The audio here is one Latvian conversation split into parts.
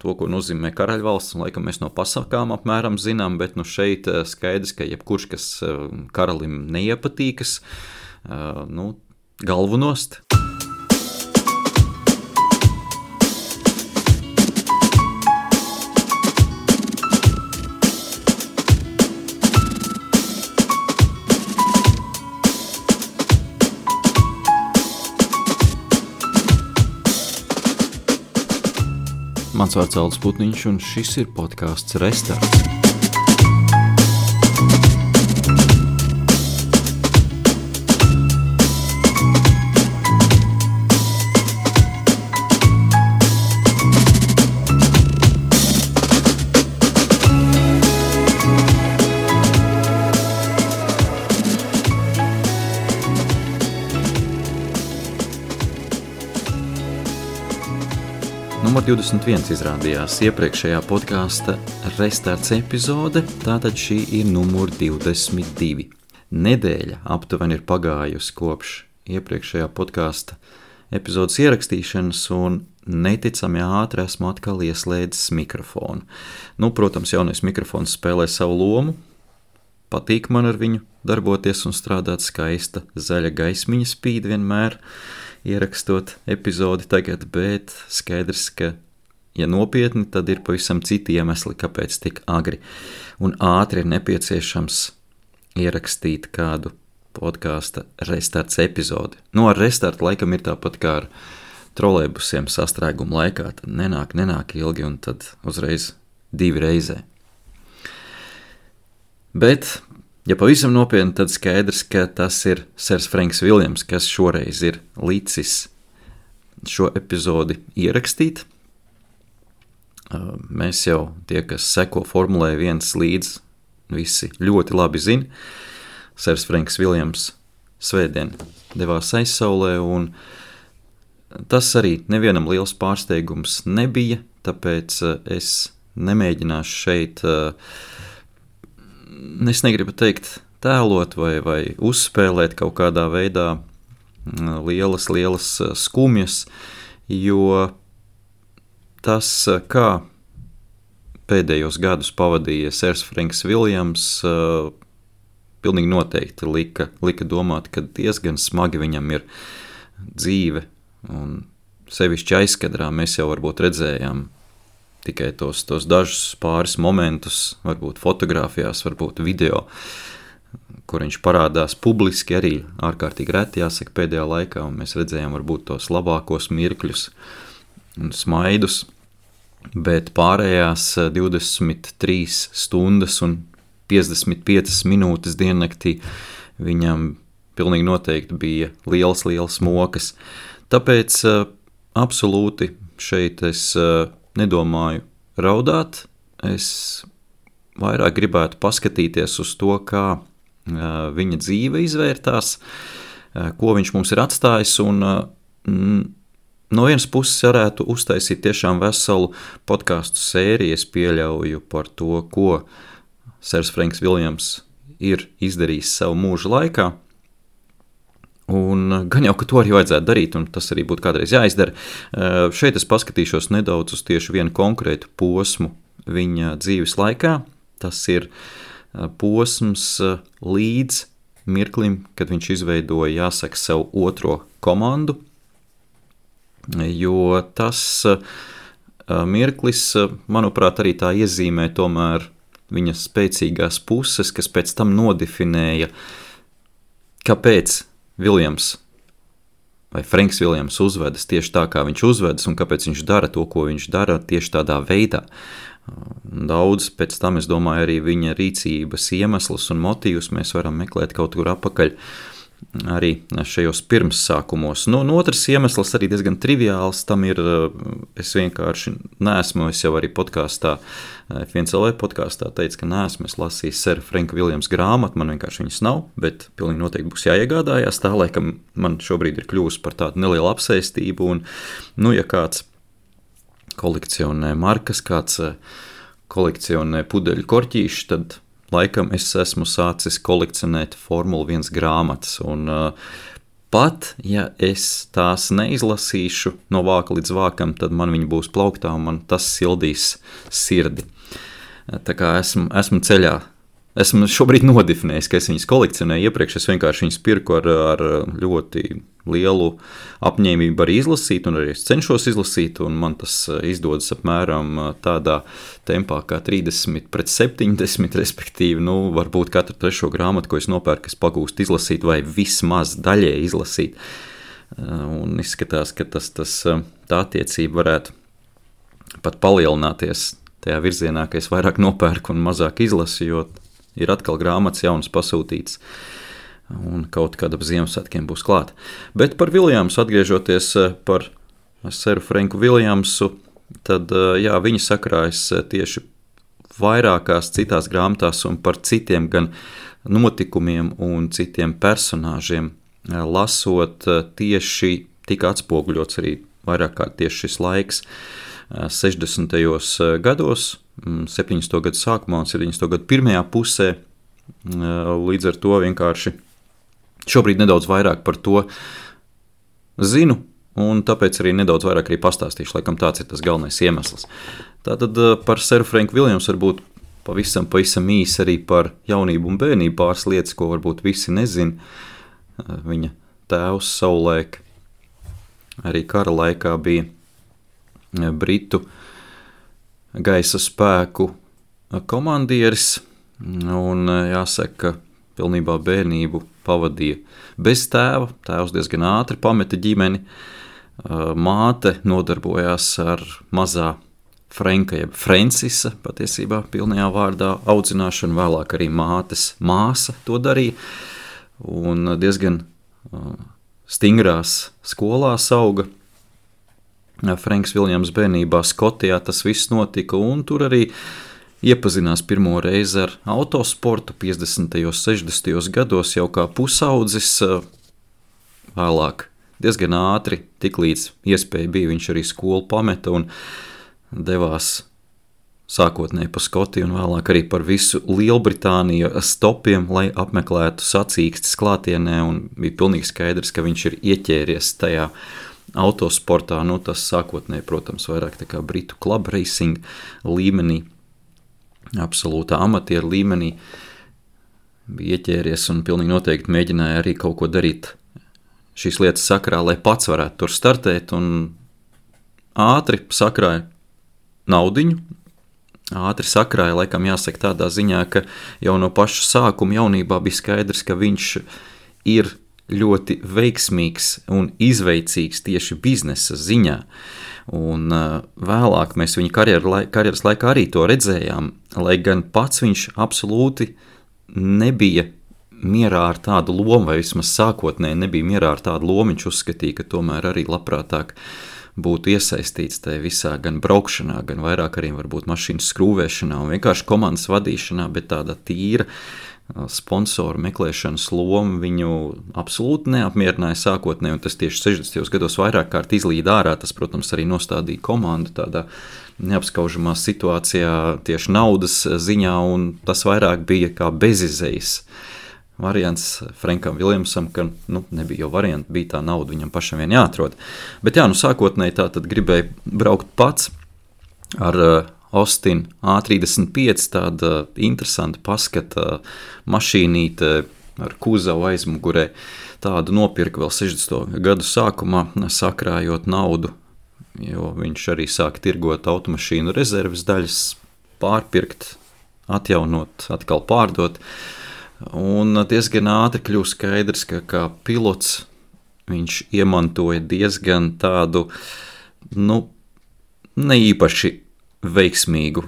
to, ko nozīmē karaļvalsts, un laikam mēs no pasakām apmēram zinām, bet šeit skaidrs, ka jebkurš, kas karalim neiepatīkas, galvu nost. Mans vārds Aldis Putniņš, un šis ir podcasts Restarts. Numur 21 izrādījās iepriekšējā podkāsta Restarts epizode, tātad šī ir numur 22. Nedēļa aptuveni ir pagājusi kopš iepriekšējā podkāsta epizodes ierakstīšanas, un neticami ātri esmu atkal ieslēdzis mikrofonu. Protams, jaunais mikrofons spēlē savu lomu, patīk man ar viņu darboties un strādāt, skaista zaļa gaismiņa spīd vienmēr, ierakstot epizodi tagad, bet skaidrs, ka, ja nopietni, tad ir pavisam citi iemesli, kāpēc tik agri un ātri ir nepieciešams ierakstīt kādu podkāsta Restarts epizodi. Ar restartu laikam ir tāpat kā ar trolejbusiem sastrēguma laikā, tad nenāk ilgi un tad uzreiz 2 reizē. Bet, ja pavisam nopietni, tad skaidrs, ka tas ir Sers Frenks Viljams, kas šoreiz ir licis šo epizodi ierakstīt. Mēs jau tie, kas seko Formulē 1 līdz, visi ļoti labi zina. Sers Frenks Viljams svētdien devās aizsaulē, un tas arī nevienam liels pārsteigums nebija, tāpēc es nemēģināšu šeit es negribu teikt tēlot vai uzspēlēt kaut kādā veidā lielas skumjas, jo tas, kā pēdējos gadus pavadīja Sers Frenks Viljams, pilnīgi noteikti lika domāt, ka diezgan smagi viņam ir dzīve, un sevišķi aizkadrā mēs jau varbūt redzējām tikai tos dažus pāris momentus, varbūt fotogrāfijās, varbūt video, kur viņš parādās publiski, arī ārkārtīgi reti jāsaka pēdējā laikā, un mēs redzējām varbūt tos labākos mirkļus un smaidus, bet pārējās 23 stundas un 55 minūtes diennaktī viņam pilnīgi noteikti bija liels mokas. Tāpēc absolūti šeit es nedomāju raudāt, es vairāk gribētu paskatīties uz to, kā viņa dzīve izvērtās, ko viņš mums ir atstājis, un no vienas puses varētu uztaisīt tiešām veselu podcastu sēriju, es pieļauju par to, ko Sers Frenks Viljams ir izdarījis savu mūža laikā, un gan jau, ka to arī vajadzētu darīt, un tas arī būtu kādreiz jāizdara. Šeit es paskatīšos nedaudz uz tieši vienu konkrētu posmu viņa dzīves laikā. Tas ir posms līdz mirklim, kad viņš izveidoja, jāsaka, savu otro komandu, jo tas mirklis, manuprāt, arī tā iezīmē tomēr viņa spēcīgās puses, kas pēc tam nodefinēja, kāpēc Viljams vai Frenks Viljams uzvedas tieši tā, kā viņš uzvedas, un kāpēc viņš dara to, ko viņš dara tieši tādā veidā. Daudz pēc tam, es domāju, arī viņa rīcības iemeslus un motīvus mēs varam meklēt kaut kur apakaļ arī šajos pirmssākumos. Otrs iemesls arī diezgan triviāls, tam ir, es vienkārši neesmu, es jau arī podkāstā, F1LV podkāstā teicu, ka neesmu, es lasīju Sera Frenka Viljams grāmatu, man vienkārši viņas nav, bet pilnīgi noteikti būs jāiegādājās, tā laikam man šobrīd ir kļūst par tādu nelielu apsēstību, un, ja kāds kolekcionē markas, kāds kolekcionē pudeļu korķīši, tad laikam es esmu sācis kolekcionēt Formula 1 grāmatas, un pat ja es tās neizlasīšu no vāka līdz vākam, tad man viņi būs plauktā un man tas sildīs sirdi. Tā kā esmu ceļā. Esmu šobrīd nodefinējis, ka es viņas kolekcionēju iepriekš, es vienkārši viņas pirku ar ļoti lielu apņēmību arī izlasīt, un arī es cenšos izlasīt, un man tas izdodas apmēram tādā tempā kā 30/70, respektīvi, varbūt katru trešo grāmatu, ko es nopērku, es pagūstu izlasīt vai vismaz daļēji izlasīt, un izskatās, ka tā attiecība varētu pat palielināties tajā virzienā, ka es vairāk nopērku un mazāk izlasu, jo ir atkal grāmatas jaunas pasūtītas, un kaut kad ap Ziemassvētkiem būs klāt. Bet par Viljamsu, atgriežoties par seru Franku Viljamsu, tad jā, viņi sakrājas tieši vairākās citās grāmatās un par citiem gan notikumiem un citiem personāžiem lasot tieši tika atspoguļots arī vairāk kā tieši šis laiks 60. gados, 70. gadu sākumā un 70. gadu pirmajā pusē, līdz ar to vienkārši šobrīd nedaudz vairāk par to zinu, un tāpēc arī nedaudz vairāk arī pastāstīšu, laikam tāds ir tas galvenais iemesls. Tātad par seru Franku Viljamsu varbūt pavisam īsi arī par jaunību un bērnību pāris lietas, ko varbūt visi nezin. Viņa tēvs savulaik arī kara laikā bija Britu gaisa spēku komandieris, un jāsaka, pilnībā bērnību pavadīja bez tēva. Tēvs diezgan ātri pameta ģimeni, māte nodarbojās ar mazā Franka, jeb Francisa, patiesībā pilnajā vārdā audzināšanu, vēlāk arī mātes māsa to darīja, un diezgan stingrās skolās auga. Franks Viljams bērnībā Skotijā tas viss notika, un tur arī iepazinās pirmo reizi ar autosportu 50. 60. gados jau kā pusaudzis, vēlāk diezgan ātri, tiklīdz iespēja bija, viņš arī skolu pameta un devās sākotnēji pa Skotiju un vēlāk arī par visu Lielbritāniju stopiem, lai apmeklētu sacīkstes klātienē, un bija pilnīgi skaidrs, ka viņš ir ieķēries tajā autosportā, tas sākotnēji, protams, vairāk tā kā Britu club racing līmenī, absolūtā amatieru līmenī, bija ieķēries un pilnīgi noteikti mēģināja arī kaut ko darīt šīs lietas sakrā, lai pats varētu tur startēt, un ātri sakrāja naudiņu, ātri sakrāja, laikam jāsaka tādā ziņā, ka jau no paša sākuma jaunībā bija skaidrs, ka viņš ir ļoti veiksmīgs un izveicīgs tieši biznesa ziņā. Un vēlāk mēs viņa karjeras laikā arī to redzējām, lai gan pats viņš absolūti nebija mierā ar tādu lomu, vai vismaz sākotnēji nebija mierā ar tādu lomu, viņš uzskatīja, ka tomēr arī labprātāk būtu iesaistīts tajā visā gan braukšanā, gan vairāk arī varbūt mašīnas skrūvēšanā un vienkārši komandas vadīšanā, bet tāda tīra sponsoru meklēšanas loma viņu absolūti neapmierināja sākotnēji, un tas tieši 60. gados vairāk kārt izlīd ārā. Tas, protams, arī nostādīja komandu tādā neapskaužamā situācijā tieši naudas ziņā, un tas vairāk bija kā bezizejas variants Frankam Viljamsam, ka nebija jau varianti, bija tā nauda viņam pašam vien jāatrod. Bet jā, sākotnēji tā tad gribēja braukt pats ar Austin A35, tāda interesanta paskata mašīnīte ar kuzavu aizmugurē. Tādu nopirka vēl 60. gadu sākumā, sakrājot naudu, jo viņš arī sāka tirgot automašīnu rezerves daļas, pārpirkt, atjaunot, atkal pārdot. Un diezgan ātri kļūst skaidrs, ka kā pilots viņš iemantoja diezgan tādu, neīpaši veiksmīgu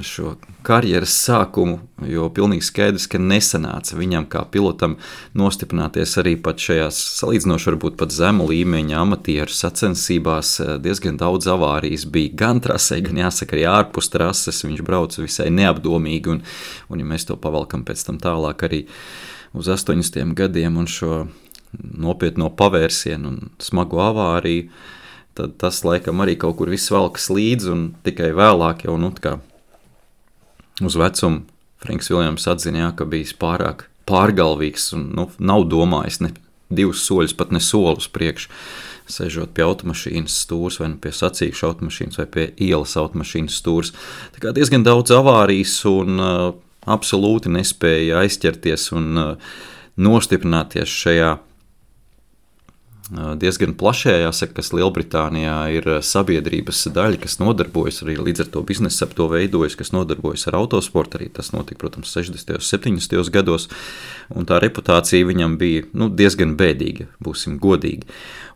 šo karjeras sākumu, jo pilnīgi skaidrs, ka nesanāca viņam kā pilotam nostiprināties arī pat šajās salīdzinoši varbūt pat zemu līmeņa amatieru sacensībās. Diezgan daudz avārijas bija gan trasē, gan jāsaka arī ārpus trases. Viņš brauca visai neapdomīgi, un ja mēs to pavalkam pēc tam tālāk arī uz 80. gadiem un šo nopietno pavērsienu un smagu avāriju, tad tas laikam arī kaut kur viss velkas līdzi, un tikai vēlāk jau, kā uz vecumu Franks Viljams atzina, ka bijis pārāk pārgalvīgs un nav domājis ne 2 soļus, pat ne soli uz priekšu, sežot pie automašīnas stūres, vai pie sacīkšu automašīnas, vai pie ielas automašīnas stūres. Tā kā diezgan daudz avārijas un absolūti nespēja aizķerties un nostiprināties šajā diezgan plašajā, jāsaka, kas Lielbritānijā ir sabiedrības daļa, kas nodarbojas arī līdz ar to biznesu, ap to veidojas, kas nodarbojas ar autosportu, arī tas notika, protams, 60. un 70. gados, un tā reputācija viņam bija diezgan bēdīga, būsim godīgi.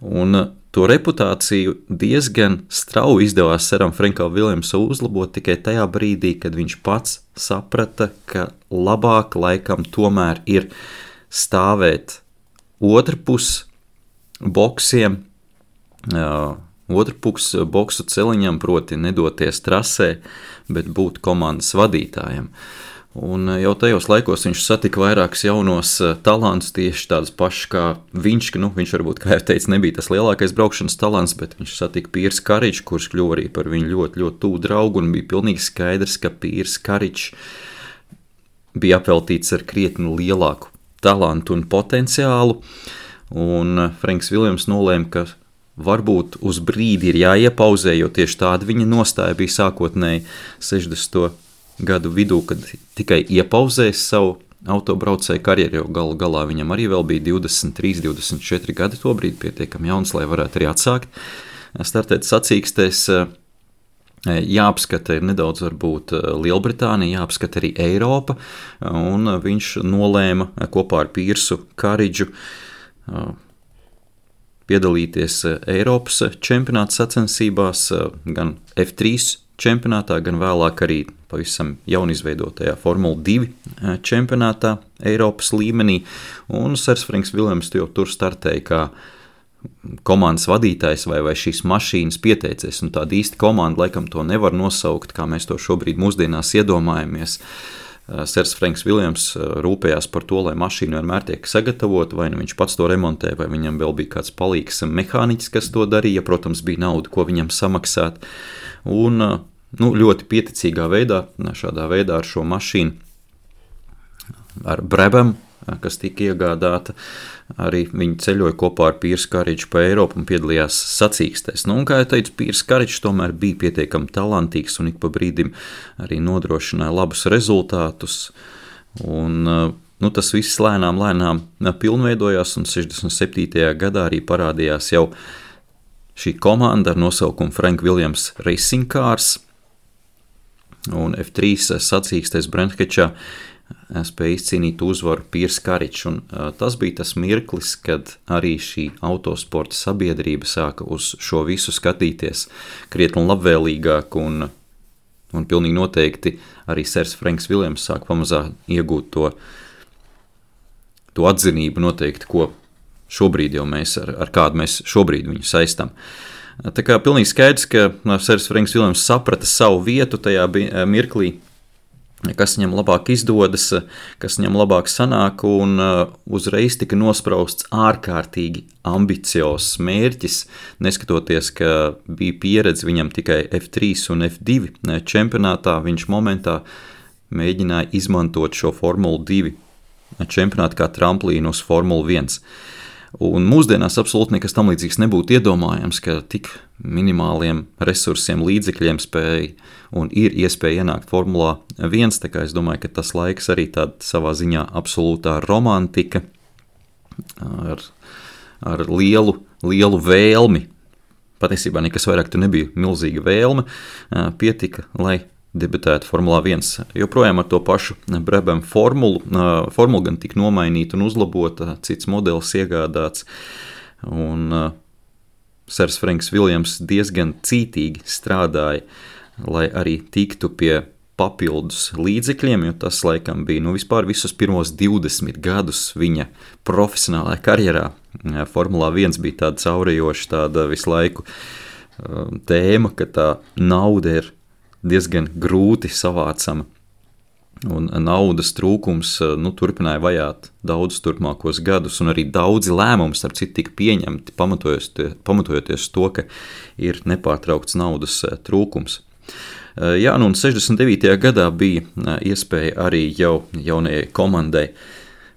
Un to reputāciju diezgan strauji izdevās Seram Frankam Viljamsam uzlabot tikai tajā brīdī, kad viņš pats saprata, ka labāk laikam tomēr ir stāvēt otrpus boksiem, otrpus boksu celiņam, proti nedoties trasē, bet būt komandas vadītājam. Un jau tajos laikos viņš satika vairākus jaunos talantus, tieši tādus pašus kā viņš, viņš varbūt, kā jau teicu, nebija tas lielākais braukšanas talants, bet viņš satika Pierce Karriču, kurš kļuva arī par viņu ļoti, ļoti tuvu draugu, un bija pilnīgi skaidrs, ka Pierce Karričs bija apveltīts ar krietni lielāku talantu un potenciālu, un Franks Viljams nolēma, ka varbūt uz brīdi ir jāiepauzē, jo tieši tāda viņa nostāja bija sākotnēji 60. gadu vidū, kad tikai iepauzēs savu autobraucēju karjeru, jo galu galā viņam arī vēl bija 23, 24 gadi tobrīd, pietiekami jauns, lai varētu arī atsākt startēt sacīkstēs. Jāapskata ir nedaudz varbūt Lielbritānija, jāapskata arī Eiropa, un viņš nolēma kopā ar Piersu Karridžu piedalīties Eiropas čempionāta sacensībās, gan F3 čempionātā, gan vēlāk arī pavisam jaunizveidotajā Formula 2 čempionātā Eiropas līmenī, un Sers Franks Viljams jau tur startēja kā komandas vadītājs vai šīs mašīnas pieteicies, un tāda īsta komanda laikam to nevar nosaukt, kā mēs to šobrīd mūsdienās iedomājamies. Sers Franks Viljams rūpējās par to, lai mašīna vienmēr tiek sagatavota, vai viņš pats to remontē, vai viņam vēl bija kāds palīgs mehāniķis, kas to darīja, protams, bija nauda, ko viņam samaksāt, un ļoti pieticīgā veidā, šādā veidā ar šo mašīnu, ar Brabham, kas tika iegādāta, arī viņi ceļoja kopā ar Piersu Karridžu pa Eiropu un piedalījās sacīkstēs. Un, kā jau teicu, Pierce Karridžs tomēr bija pietiekami talantīgs un ik pa brīdim arī nodrošināja labus rezultātus. Un, tas viss lēnām pilnveidojās, un 67. gadā arī parādījās jau šī komanda ar nosaukumu Frank Williams Racing Cars, un F3 sacīkstēs Brentfordšā spēja izcīnīt uzvaru Pierce Karridžs, un tas bija tas mirklis, kad arī šī autosporta sabiedrība sāka uz šo visu skatīties krietni labvēlīgāk, un pilnīgi noteikti arī Sers Franks Viljams sāk pamazā iegūt to atzinību noteikti, ko šobrīd jau mēs, ar kādu mēs šobrīd viņu saistam. Tā kā pilnīgi skaidrs, ka Sers Franks Viljams saprata savu vietu tajā mirklī, kas viņam labāk izdodas, kas viņam labāk sanāk, un uzreiz tika nosprausts ārkārtīgi ambiciozs mērķis, neskatoties, ka bija pieredze viņam tikai F3 un F2 čempionātā, viņš momentā mēģināja izmantot šo Formulu 2 čempionātu kā tramplīnu uz Formulu 1. Un mūsdienās absolūti nekas tam līdzīgs nebūtu iedomājams, ka tik minimāliem resursiem, līdzekļiem spēja un ir iespēja ienākt Formulā 1, tā kā es domāju, ka tas laiks arī tāda savā ziņā absolūtā romantika ar lielu vēlmi. Patiesībā nekas vairāk tur nebija milzīga vēlme, pietika, lai debitētu Formulā 1. Joprojām ar to pašu Brabham formulu gan tika nomainīta un uzlabota, cits modelis iegādāts, un Sers Franks Viljams diezgan cītīgi strādāja, lai arī tiktu pie papildus līdzekļiem, jo tas laikam bija vispār visus pirmos 20 gadus viņa profesionālajā karjerā. Formulā 1 bija tāda caurējoša, tāda visu laiku tēma, ka tā nauda ir diezgan grūti savācama, un naudas trūkums turpināja vajāt daudzus turpmākos gadus, un arī daudzi lēmumi, starp citu, tika pieņemti, pamatojoties to, ka ir nepārtraukts naudas trūkums. Jā, un 69. gadā bija iespēja arī jaunajai komandai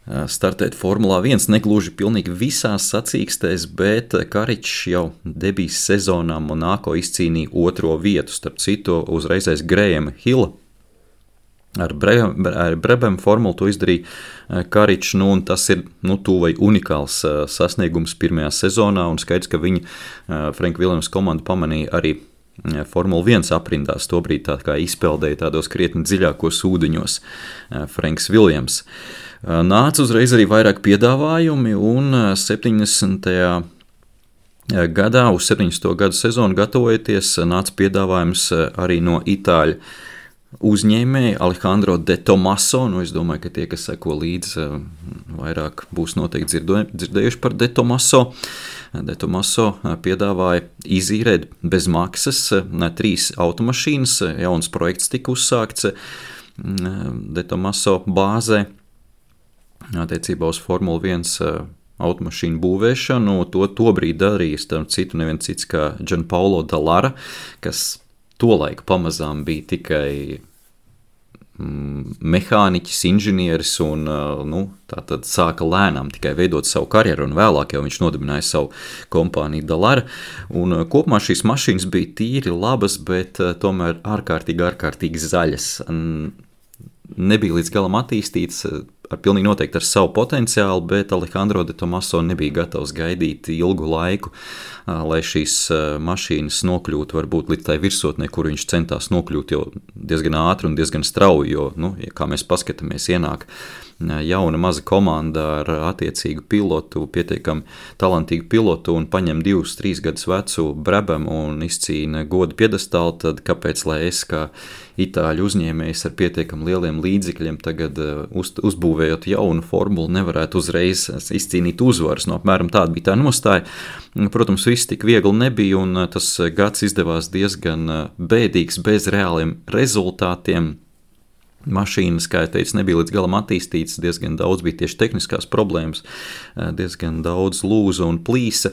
startēt Formulā 1 negluži pilnīgi visās sacīkstēs, bet Karičs jau debijas sezonā Monako izcīnīja 2. vietu, starp citu uzreizais Grahama Hilla. Ar Brabham formulu to izdarīja Karičs, un tas ir tuvu vai unikāls sasniegums pirmajā sezonā, un skaidrs, ka viņa Franka Viljamsa komanda pamanīja arī Formula 1 aprindās, tobrīd tā kā izpeldēja tādos krietni dziļākos ūdeņos Franks Viljams. Nāca uzreiz arī vairāk piedāvājumi, un 70. gadā, uz 70. gadu sezonu gatavojoties, nāca piedāvājums arī no itāļu uzņēmēja Alejandro de Tomaso. Es domāju, ka tie, kas seko līdzi, vairāk būs noteikti dzirdējuši par de Tomaso. De Tomaso piedāvāja izīrēt bez maksas 3 automašīnas. Jauns projekts tika uzsākts de Tomaso bāzē attiecībā uz Formula 1 automašīnu būvēšanu. Tobrīd darīja starp citu neviens cits kā Gianpaolo Dallara, kas tolaik pamazām bija tikai mehāniķis, inženieris un tātad sāka lēnām tikai veidot savu karjeru, un vēlāk jau viņš nodibināja savu kompāniju Dallara. Un kopumā šīs mašīnas bija tīri labas, bet tomēr ārkārtīgi zaļas. Nebija līdz galam attīstīts, pilnīgi noteikti ar savu potenciālu, bet Alejandro de Tomaso nebija gatavs gaidīt ilgu laiku, lai šīs mašīnas nokļūtu varbūt līdz tai virsotnē, kur viņš centās nokļūt jau diezgan ātri un diezgan strauji, jo, kā mēs paskatāmies, ienāk jauna maza komanda ar attiecīgu pilotu, pietiekami talantīgu pilotu un paņem 2-3 gadus vecu Brabhamu un izcīna godu piedestālu, tad kāpēc, lai es kā itāļu uzņēmējs ar pietiekami lieliem līdzekļiem tagad uzbūvējot jaunu formulu nevarētu uzreiz izcīnīt uzvaras. Apmēram tāda bija tā nostāja. Protams, viss tik viegli nebija, un tas gads izdevās diezgan bēdīgs, bez reāliem rezultātiem. Mašīnas, kā jau teicu, nebija līdz galam attīstītas, diezgan daudz bija tieši tehniskās problēmas, diezgan daudz lūza un plīsa.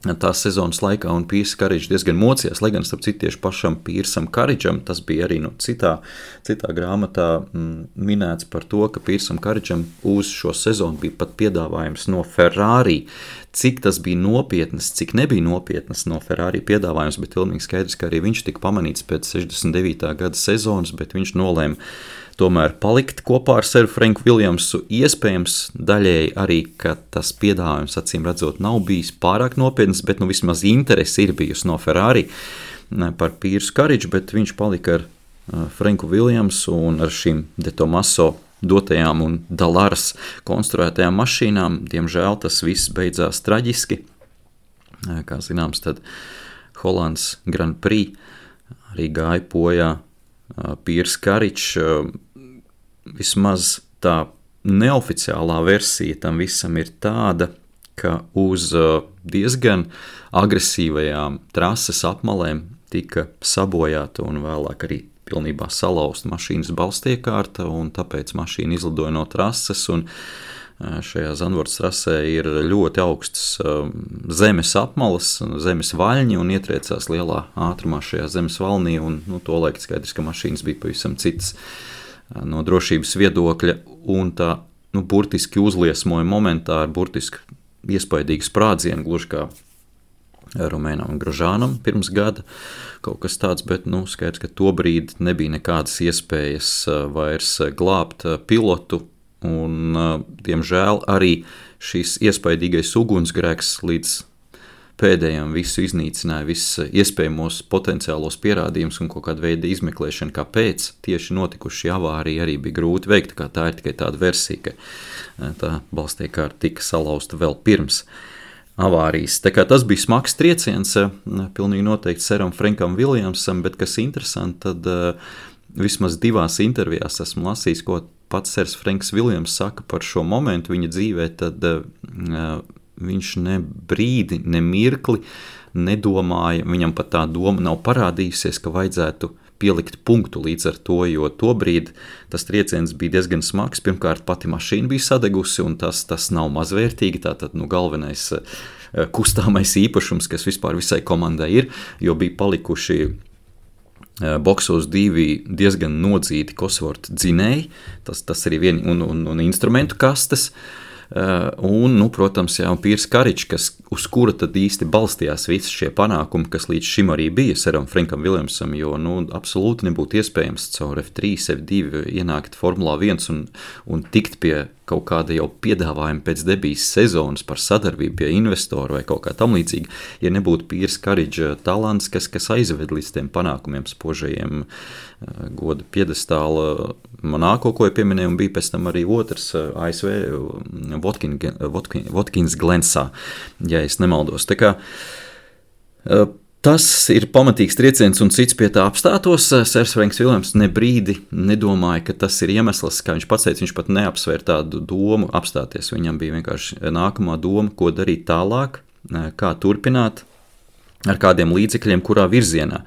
Tās sezonas laikā, un Pīrs Karičs diezgan mocījās, lai gan starp citu tieši pašam Pīrsam Karičam, tas bija arī citā grāmatā minēts par to, ka Pīrsam Karičam uz šo sezonu bija pat piedāvājums no Ferrari. Cik tas bija nopietnas, cik nebija nopietnas no Ferrari piedāvājums, bet pilnīgi skaidrs, ka arī viņš tika pamanīts pēc 69. gada sezonas, bet viņš nolēma tomēr palikt kopā ar seru Franku Viljamsu. Iespējams daļēji arī, ka tas piedāvājums, acīm redzot, nav bijis pārāk nopietns, bet vismaz interesi ir bijusi no Ferrari par Pīrsu Kariču, bet viņš palika ar Franku Viljamsu un ar šīm de Tomaso dotajām un Dallaras konstruētajām mašīnām. Diemžēl tas viss beidzās traģiski. Kā zināms, tad Holandas Grand Prix arī gāja bojā Pīrs Karičs. Vismaz tā neoficiālā versija tam visam ir tāda, ka uz diezgan agresīvajām trases apmalēm tika sabojāta un vēlāk arī pilnībā salauzta mašīnas balstiekārta, un tāpēc mašīna izlidoja no trases, un šajā Zandvoortas trasē ir ļoti augstas zemes apmalas, zemes vaļņi, un ietriecās lielā ātrumā šajā zemes valnī, un tolaik skaidrs, ka mašīnas bija pavisam citas no drošības viedokļa, un tā burtiski uzliesmoja momentā ar burtiski iespaidīgu sprādzienu, gluži kā Romēnam Grožānam pirms gada kaut kas tāds, bet skaidrs, ka tobrīd nebija nekādas iespējas vairs glābt pilotu, un diemžēl arī šis iespaidīgais ugunsgrēks līdz pēdējiem visu iznīcināja, visus iespējamos potenciālos pierādījumus un kaut kāda veida izmeklēšana, kāpēc tieši notikuši šī avārija arī bija grūti veikt, kā tā ir tikai tāda versija, ka tā balstiekārta tika salauzta vēl pirms avārijas. Tā kā tas bija smags trieciens, pilnīgi noteikti seram Frankam Viljamsam, bet kas interesanti, tad vismaz 2 intervijās esmu lasījis, ko pats sers Franks Viljams saka par šo momentu viņa dzīvē, tad viņš ne brīdi, ne mirkli nedomāja, viņam pat tā doma nav parādījusies, ka vajadzētu pielikt punktu līdz ar to, jo tobrīd tas trieciens bija diezgan smags. Pirmkārt, pati mašīna bija sadegusi, un tas nav mazvērtīgi, tātad galvenais kustāmais īpašums, kas vispār visai komandai ir, jo bija palikuši boksos 2 diezgan nodzīti Cosworth dzinēji, tas arī un instrumentu kastes, un, protams, Piers Courage, uz kura tad īsti balstījās visi šie panākumi, kas līdz šim arī bija Seram Frankam Viljamsam, jo, absolūti nebūtu iespējams caur F3, F2 ienākt Formulā 1 un tikt pie kaut kāda jau piedāvājuma pēc debijas sezonas par sadarbību pie investoru vai kaut kā tam līdzīgi, ja nebūtu Piers Courage talants, kas aizved līdz tiem panākumiem spožajiem goda piedestāla Monako, ko pieminēju, un bija pēc tam arī otrs ASV Watkins Glensā, ja es nemaldos. Tā kā tas ir pamatīgs trieciens, un cits pie tā apstātos. Sers Franks Viljams ne brīdi nedomāja, ka tas ir iemesls, kā viņš pats teica, viņš pat neapsvēr tādu domu apstāties. Viņam bija vienkārši nākamā doma, ko darīt tālāk, kā turpināt, ar kādiem līdzekļiem, kurā virzienā.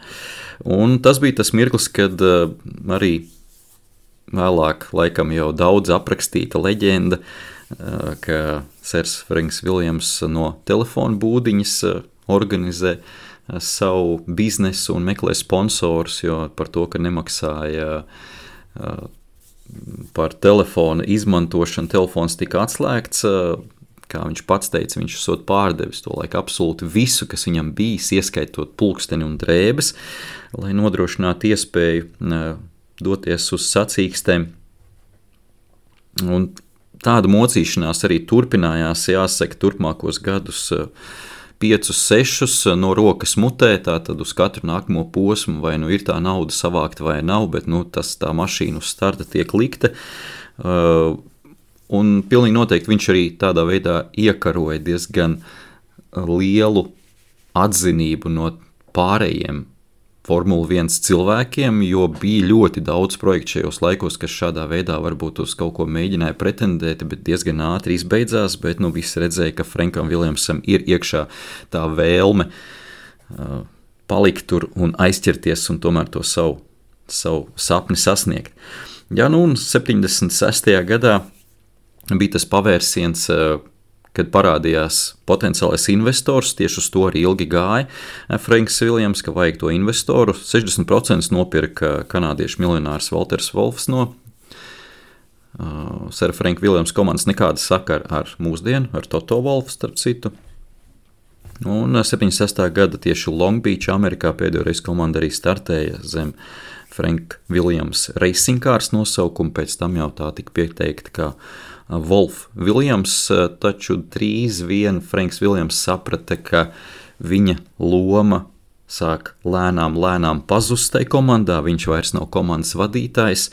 Un tas bija tas mirklis, kad arī vēlāk laikam jau daudz aprakstīta leģenda, ka Sers Franks Viljams no telefona būdiņas organizē savu biznesu un meklē sponsorus, jo par to, ka nemaksāja par telefona izmantošanu, telefons tika atslēgts, kā viņš pats teica, viņš esot pārdevis to laiku absolūti visu, kas viņam bijis, ieskaitot pulksteni un drēbes, lai nodrošinātu iespēju doties uz sacīkstēm. Un tāda mocīšanās arī turpinājās, jāsaka, turpmākos gadus 5-6 no rokas mutē, tātad uz katru nākamo posmu, vai ir tā nauda savākta vai nav, bet tā mašīna uz starta tiek likta. Un pilnīgi noteikti viņš arī tādā veidā iekaroja diezgan lielu atzinību no pārējiem Formula 1 cilvēkiem, jo bija ļoti daudz projektu šajos laikos, kas šādā veidā varbūt uz kaut ko mēģināja pretendēt, bet diezgan ātri izbeidzās, bet visi redzēja, ka Frankam Viljamsam ir iekšā tā vēlme palikt tur un aizķerties un tomēr to savu sapni sasniegt. Ja, un 76. gadā bija tas pavērsiens, kad parādījās potenciālais investors, tieši uz to arī ilgi gāja Franks Viljams, ka vajag to investoru. 60% nopirka kanādiešu miljonārs Walters Wolfs no Sera Franka Viljams komandas, nekāda sakara ar mūsdienu, ar Toto Wolfu starp citu. Un 76. gada tieši Long Beach, Amerikā pēdējo reizi komanda arī startēja zem Frank Viljams Racing Cars nosaukumu, pēc tam jau tā tika pieteikta kā Wolf Viljams, taču drīz vien Franks Viljams saprata, ka viņa loma sāk lēnām pazust tai komandā, viņš vairs nav komandas vadītājs,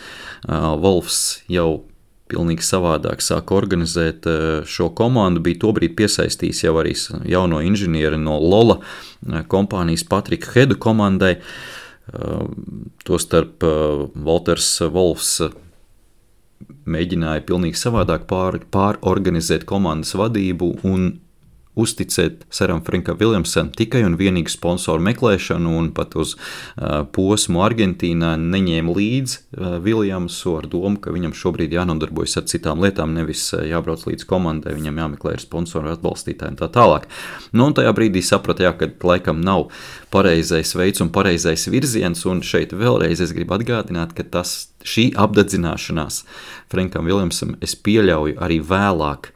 Wolfs jau pilnīgi savādāk sāk organizēt šo komandu, bija tobrīd piesaistījis jau arī jauno inženieri no Lola kompānijas Patriku Hedu komandai, tostarp Walters Wolfs mēģināja pilnīgi savādāk pārorganizēt komandas vadību un uzticēt Seram Frankam Viljamsam tikai un vienīgi sponsoru meklēšanu, un pat uz posmu Argentīnā neņēma līdzi Viljamsu ar domu, ka viņam šobrīd jānodarbojas ar citām lietām, nevis jābrauc līdz komandai, viņam jāmeklē ar sponsoru atbalstītāju un tā tālāk. Un tajā brīdī saprata, ka laikam nav pareizais veids un pareizais virziens, un šeit vēlreiz es gribu atgādināt, ka šī apdedzināšanās Frankam Viljamsam, es pieļauju arī vēlāk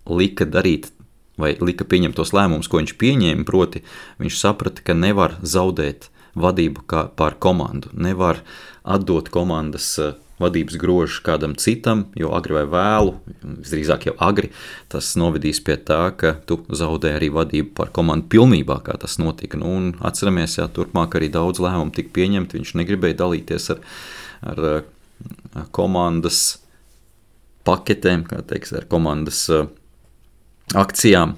lika darīt vai lika pieņemt tos lēmumus, ko viņš pieņēma, proti viņš saprata, ka nevar zaudēt vadību pār komandu, nevar atdot komandas vadības grožu kādam citam, jo agri vai vēlu, visdrīzāk jau agri, tas novedīs pie tā, ka tu zaudē arī vadību pār komandu pilnībā, kā tas notika. Un atceramies, turpmāk arī daudz lēmumu tika pieņemt, viņš negribēja dalīties ar komandas paketēm, kā teiks, ar komandas akcijām,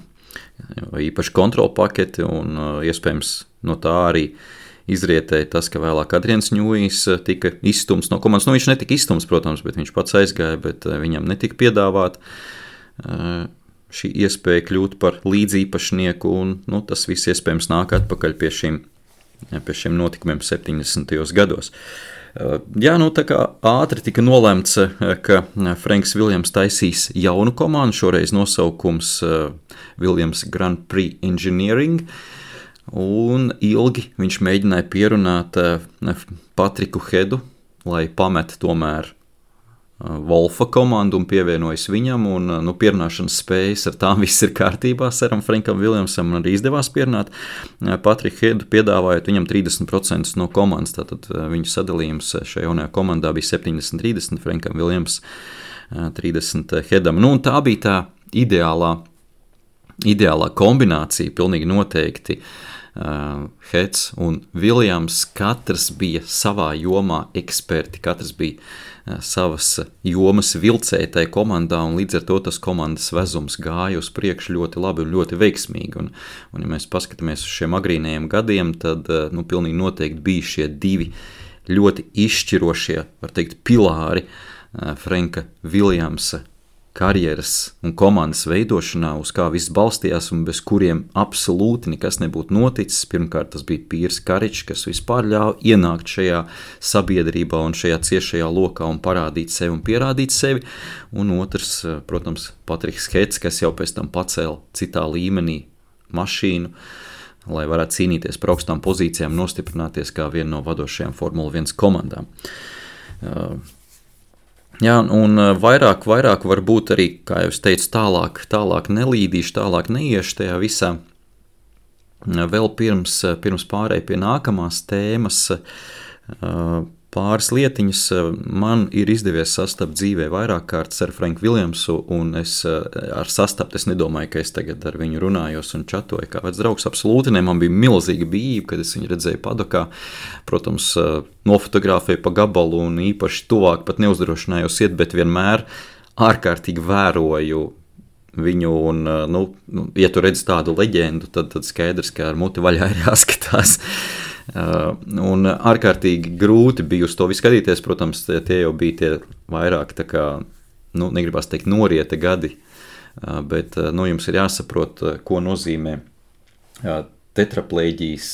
īpaši kontrola paketi, un iespējams no tā arī izrietēja tas, ka vēlāk Adrians Ņūjs tika izstumts no komandas. Viņš netika izstumts, protams, bet viņš pats aizgāja, bet viņam netika piedāvāt šī iespēja kļūt par līdzīpašnieku, un tas viss iespējams nāk atpakaļ pie šiem notikumiem 70. gados. Jā, tā kā ātri tika nolemts, ka Franks Viljams taisīs jaunu komandu, šoreiz nosaukums Viljams Grand Prix Engineering, un ilgi viņš mēģināja pierunāt Patriku Hedu, lai pamet tomēr Wolfa komandu un pievienojas viņam, un pierunāšanas spējas ar tām viss ir kārtībā. Seram Frankam Viljamsam arī izdevās pierunāt Patriku Hedu, piedāvājot viņam 30% no komandas, tātad viņu sadalījums šajā jaunajā komandā bija 70-30, Frankam Viljams 30 Hedam. Un tā bija tā ideālā kombinācija, pilnīgi noteikti. Heds un Viljams, katrs bija savā jomā eksperti, katrs bija savas jomas vilcēji tai komandā, un līdz ar to tas komandas vezums gāja uz priekšu ļoti labi un ļoti veiksmīgi. Un ja mēs paskatāmies uz šiem agrīnajiem gadiem, tad pilnīgi noteikti bija šie divi ļoti izšķirošie, var teikt, pilāri Franka Viljamsa karjeras un komandas veidošanā, uz kā viss balstījās un bez kuriem absolūti nekas nebūtu noticis. Pirmkārt, tas bija Pīrs Karičs, kas vispār ļāva ienākt šajā sabiedrībā un šajā ciešajā lokā un parādīt sevi un pierādīt sevi. Un otrs, protams, Patriks Heds, kas jau pēc tam pacēla citā līmenī mašīnu, lai varētu cīnīties par augstām pozīcijām, nostiprināties kā viena no vadošajām Formula 1 komandām. Jā, un vairāk varbūt arī, kā jau es teicu, tālāk nelīdīšu, tālāk neiešu tajā visā. Vēl pirms pārēj pie nākamās tēmas, pāris lietiņas man ir izdevies sastapt dzīvē vairāk kārtas ar Franku Viljamsu, un es nedomāju, ka es tagad ar viņu runājos un čatoju kā vecs draugs. Absolūti ne, man bija milzīga bijība, kad es viņu redzēju padokā. Protams, nofotografēju pa gabalu un īpaši tuvāk pat neuzdrošinājos iet, bet vienmēr ārkārtīgi vēroju viņu, un, ja tu redzi tādu leģendu, tad skaidrs, ka ar muti vaļā ir jāskatās. Un ārkārtīgi grūti bija uz to visu skatīties. Protams, tie jau bija tie vairāk tā kā, negribas teikt norieta gadi, bet jums ir jāsaprot, ko nozīmē tetraplēģijas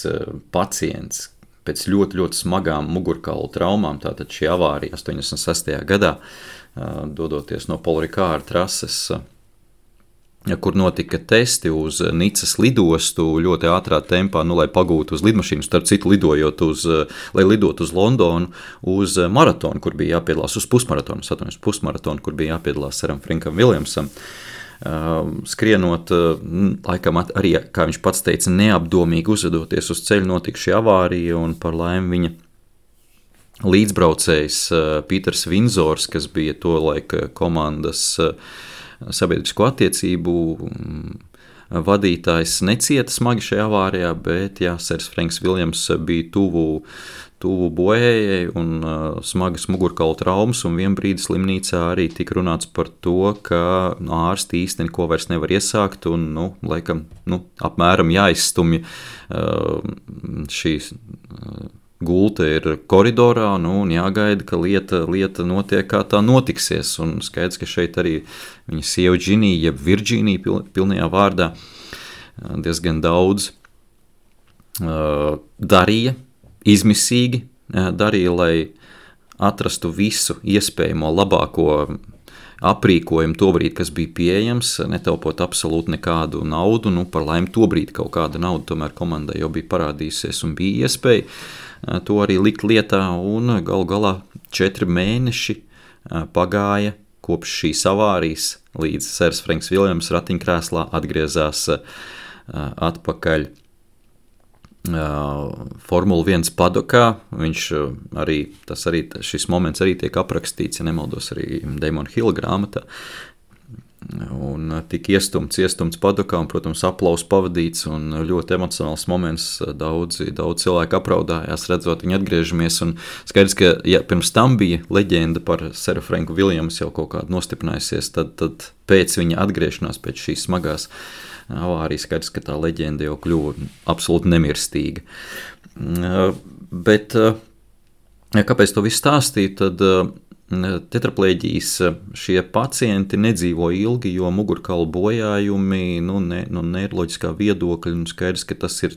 pacients pēc ļoti, ļoti smagām mugurkaulu traumām. Tātad šī avārija 86. gadā, dodoties no Paul Ricard trases, kur notika testi uz Nicas lidostu ļoti ātrā tempā, lai pagūtu uz lidmašīnu, starp citu lai lidot uz Londonu, uz maratonu, kur bija jāpiedalās, uz pusmaratonu, kur bija jāpiedalās Seram Frankam Viljamsam. Skrienot, laikam arī, kā viņš pats teica, neapdomīgi uzvedoties uz ceļu, notika šī avārija, un par laimi viņa līdzbraucējs Pīters Vinzors, kas bija to laika komandas sabiedrisko attiecību vadītājs, necieta smagi šajā avārijā, bet Sers Franks Viljams bija tuvu bojējai un smagas mugurkaula traumas, un vienbrīd slimnīcā arī tika runāts par to, ka ārsti īsti neko vairs nevar iesākt, un, laikam, apmēram jāizstumj šīs gulta ir koridorā, un jāgaida, ka lieta notiek, kā tā notiksies. Un skaidrs, ka šeit arī viņa sieva Džinija, jeb Virģīnija pilnajā vārdā, diezgan daudz darīja, izmisīgi darīja, lai atrastu visu iespējamo labāko aprīkojumu tobrīd, kas bija pieejams, netaupot absolūti nekādu naudu. Par laimi tobrīd kaut kāda nauda tomēr komandai jau bija parādījusies un bija iespēja to arī likt lietā, un galu galā 4 mēneši pagāja kopš šīs avārijas, līdz Sers Franks Viljams ratiņkrēslā atgriezās atpakaļ Formula 1 padokā. Šis moments arī tiek aprakstīts, ja nemaldos, arī Damona Hilla grāmatā. Un tika iestumts padokā, un, protams, aplauss pavadīts, un ļoti emocionāls moments. Daudz cilvēku apraudājās, redzot viņu atgriežamies, un skaidrs, ka, ja pirms tam bija leģenda par Seru Franku Viljamsu jau kaut kādu nostiprinājusies, tad pēc viņa atgriešanās, pēc šīs smagās avārijas, skaidrs, ka tā leģenda jau kļuva absolūti nemirstīga. Bet, kāpēc to visu stāstīt, tad tetraplēģijas šie pacienti nedzīvo ilgi, jo mugurkaula bojājumi, neiroloģiskā viedokļa, skaidrs, ka tas ir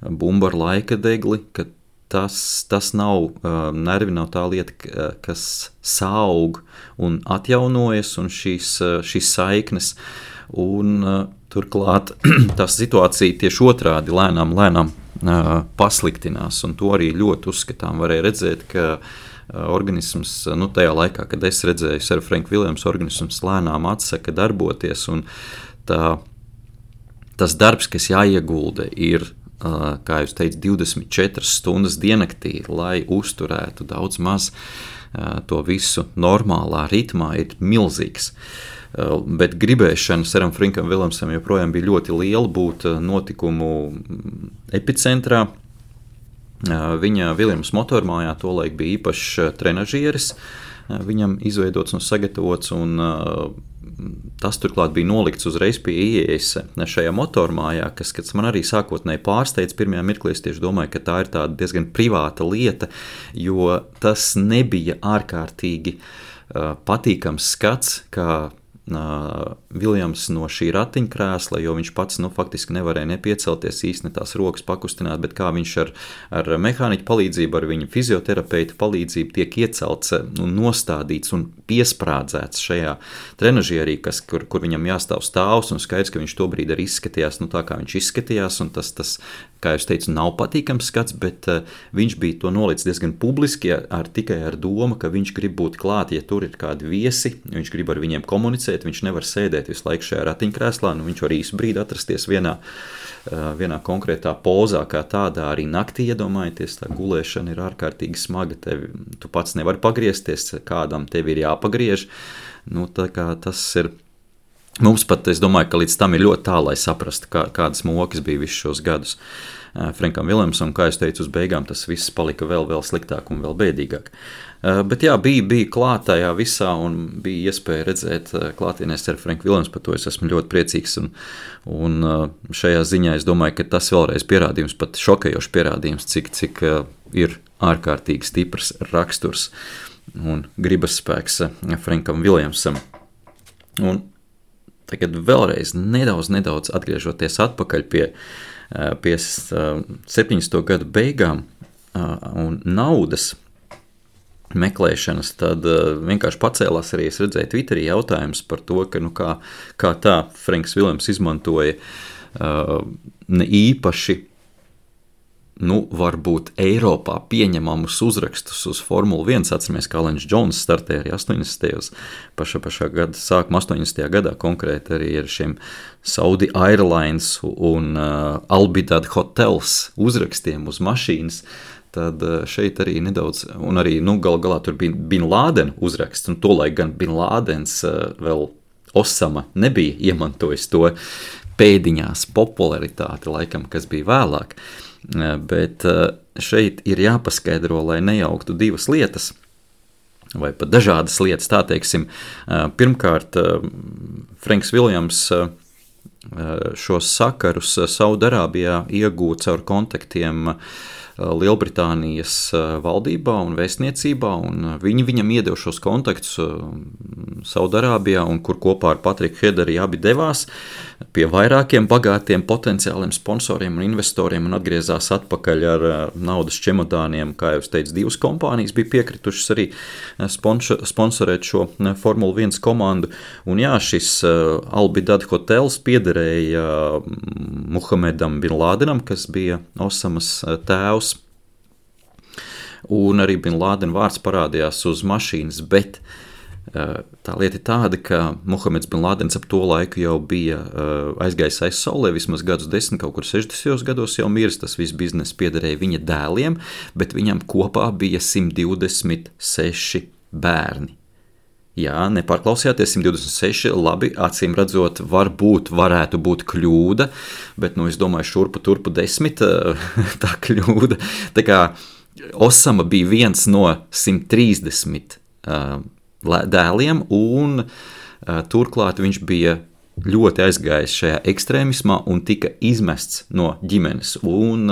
bumba ar laika degli, ka tas nav, nervi nav tā lieta, kas saug un atjaunojas, un šīs saiknes, Un turklāt tā situācija tieši otrādi lēnām pasliktinās, un to arī ļoti uzskatām. Varēja redzēt, ka organisms, tajā laikā, kad es redzēju Sir Frank Williams, organisms lēnām atsaka darboties, un tas darbs, kas jāiegulda, ir, kā jūs teicat, 24 stundas diennaktī, lai uzturētu daudz maz to visu normālā ritmā, ir milzīgs. Bet gribēšana Seram Frankam Williamsam joprojām bija ļoti liela būt notikumu epicentrā. Viņa Viljams motormājā tolaik bija īpašs trenažieris, viņam izveidots un sagatavots, un tas turklāt bija nolikts uzreiz pie ieejas šajā motormājā, kas man arī sākotnēji pārsteidz. Pirmajā mirklī es tieši domāju, ka tā ir tāda diezgan privāta lieta, jo tas nebija ārkārtīgi patīkams skats, kā Viljams no šī ratiņkrēsla, jo viņš pats faktiski nevarēja nepiecelties, īsti ne tās rokas pakustināt, bet kā viņš ar mehāniķu palīdzību, ar viņa fizioterapeitu palīdzību tiek iecelts un nostādīts un piesprādzēts šajā trenažierī, kur viņam jāstāv stāvs, un skaidrs, ka viņš tobrīd arī izskatījās tā, kā viņš izskatījās, un tas kā jūs teicu, nav patīkams skats, bet viņš bija to nolicis diezgan publiski tikai ar domu, ka viņš grib būt klāt, ja tur ir kādi viesi, viņš grib ar viņiem komunicēt, viņš nevar sēdēt visu laiku šajā ratiņkrēslā, viņš var īsu brīdi atrasties vienā konkrētā pozā, kā tādā arī naktī, iedomājieties, tā gulēšana ir ārkārtīgi smaga, tu pats nevari pagriezties, kādam tevi ir jāpagriež, tā kā tas ir. Mums pat, es domāju, ka līdz tam ir ļoti tālu, lai saprastu, kādas mokas bija visus šos gadus Frankam Williamsam, un kā es teicu, uz beigām tas viss palika vēl sliktāk un vēl bēdīgāk. Bet jā, bija klāt tajā visā, un bija iespēja redzēt klātienē Sir Frank Williams, par to es esmu ļoti priecīgs, un šajā ziņā es domāju, ka tas vēlreiz pierādījums, pat šokējošs pierādījums, cik ir ārkārtīgi stiprs raksturs un gribas spēks Frankam Williamsam. Un tagad vēlreiz nedaudz atgriežoties atpakaļ pie 70. gadu beigām un naudas meklēšanas, tad vienkārši pacēlās arī, es redzēju Twitterī jautājums par to, ka kā tā Franks Williams izmantoja ne īpaši varbūt Eiropā pieņemamus uzrakstus uz Formula 1. Atceramies, kā Lens Džons startēja arī 80. pašā gada sākuma 80. gadā konkrēti arī ar šiem Saudi Airlines un Albidad Hotels uzrakstiem uz mašīnas. Tad šeit arī nedaudz, un arī galā tur bija Bin Laden uzraksts, un tolaik gan Bin Ladens vēl Osama nebija iemantojis to pēdiņās popularitāti, laikam, kas bija vēlāk. Bet šeit ir jāpaskaidro, lai nejauktu divas lietas, vai pat dažādas lietas, tā teiksim. Pirmkārt, Franks Williams šos sakarus Saudarābijā iegūta caur kontaktiem Lielbritānijas valdībā un vēstniecībā, un viņi viņam iedeva šos kontaktus Saudarābijā, un kur kopā ar Patriku Hederi abi devās pie vairākiem bagātiem potenciāliem sponsoriem un investoriem un atgriezās atpakaļ ar naudas čemodāniem. Kā jau es teicu, divas kompānijas bija piekritušas arī sponsorēt šo Formula 1 komandu, un jā, šis Albidad Hotels piederēja Muhamedam Bin Ladenam, kas bija Osamas tēvs, un arī Bin Laden vārds parādījās uz mašīnas, bet tā lieta ir tāda, ka Muhameds Bin Ladens ap to laiku jau bija aizgājis aiz saulē, vismaz gadus 10, kaut kur 60. gados jau miris, tas viss bizness piederēja viņa dēliem, bet viņam kopā bija 126 bērni. Jā, nepārklausījāties, 126, labi, acīm redzot, varētu būt kļūda, bet, es domāju, turpu 10 tā kļūda. Tā kā Osama bija viens no 130 dēliem, un turklāt viņš bija ļoti aizgājis šajā ekstrēmismā un tika izmests no ģimenes. Un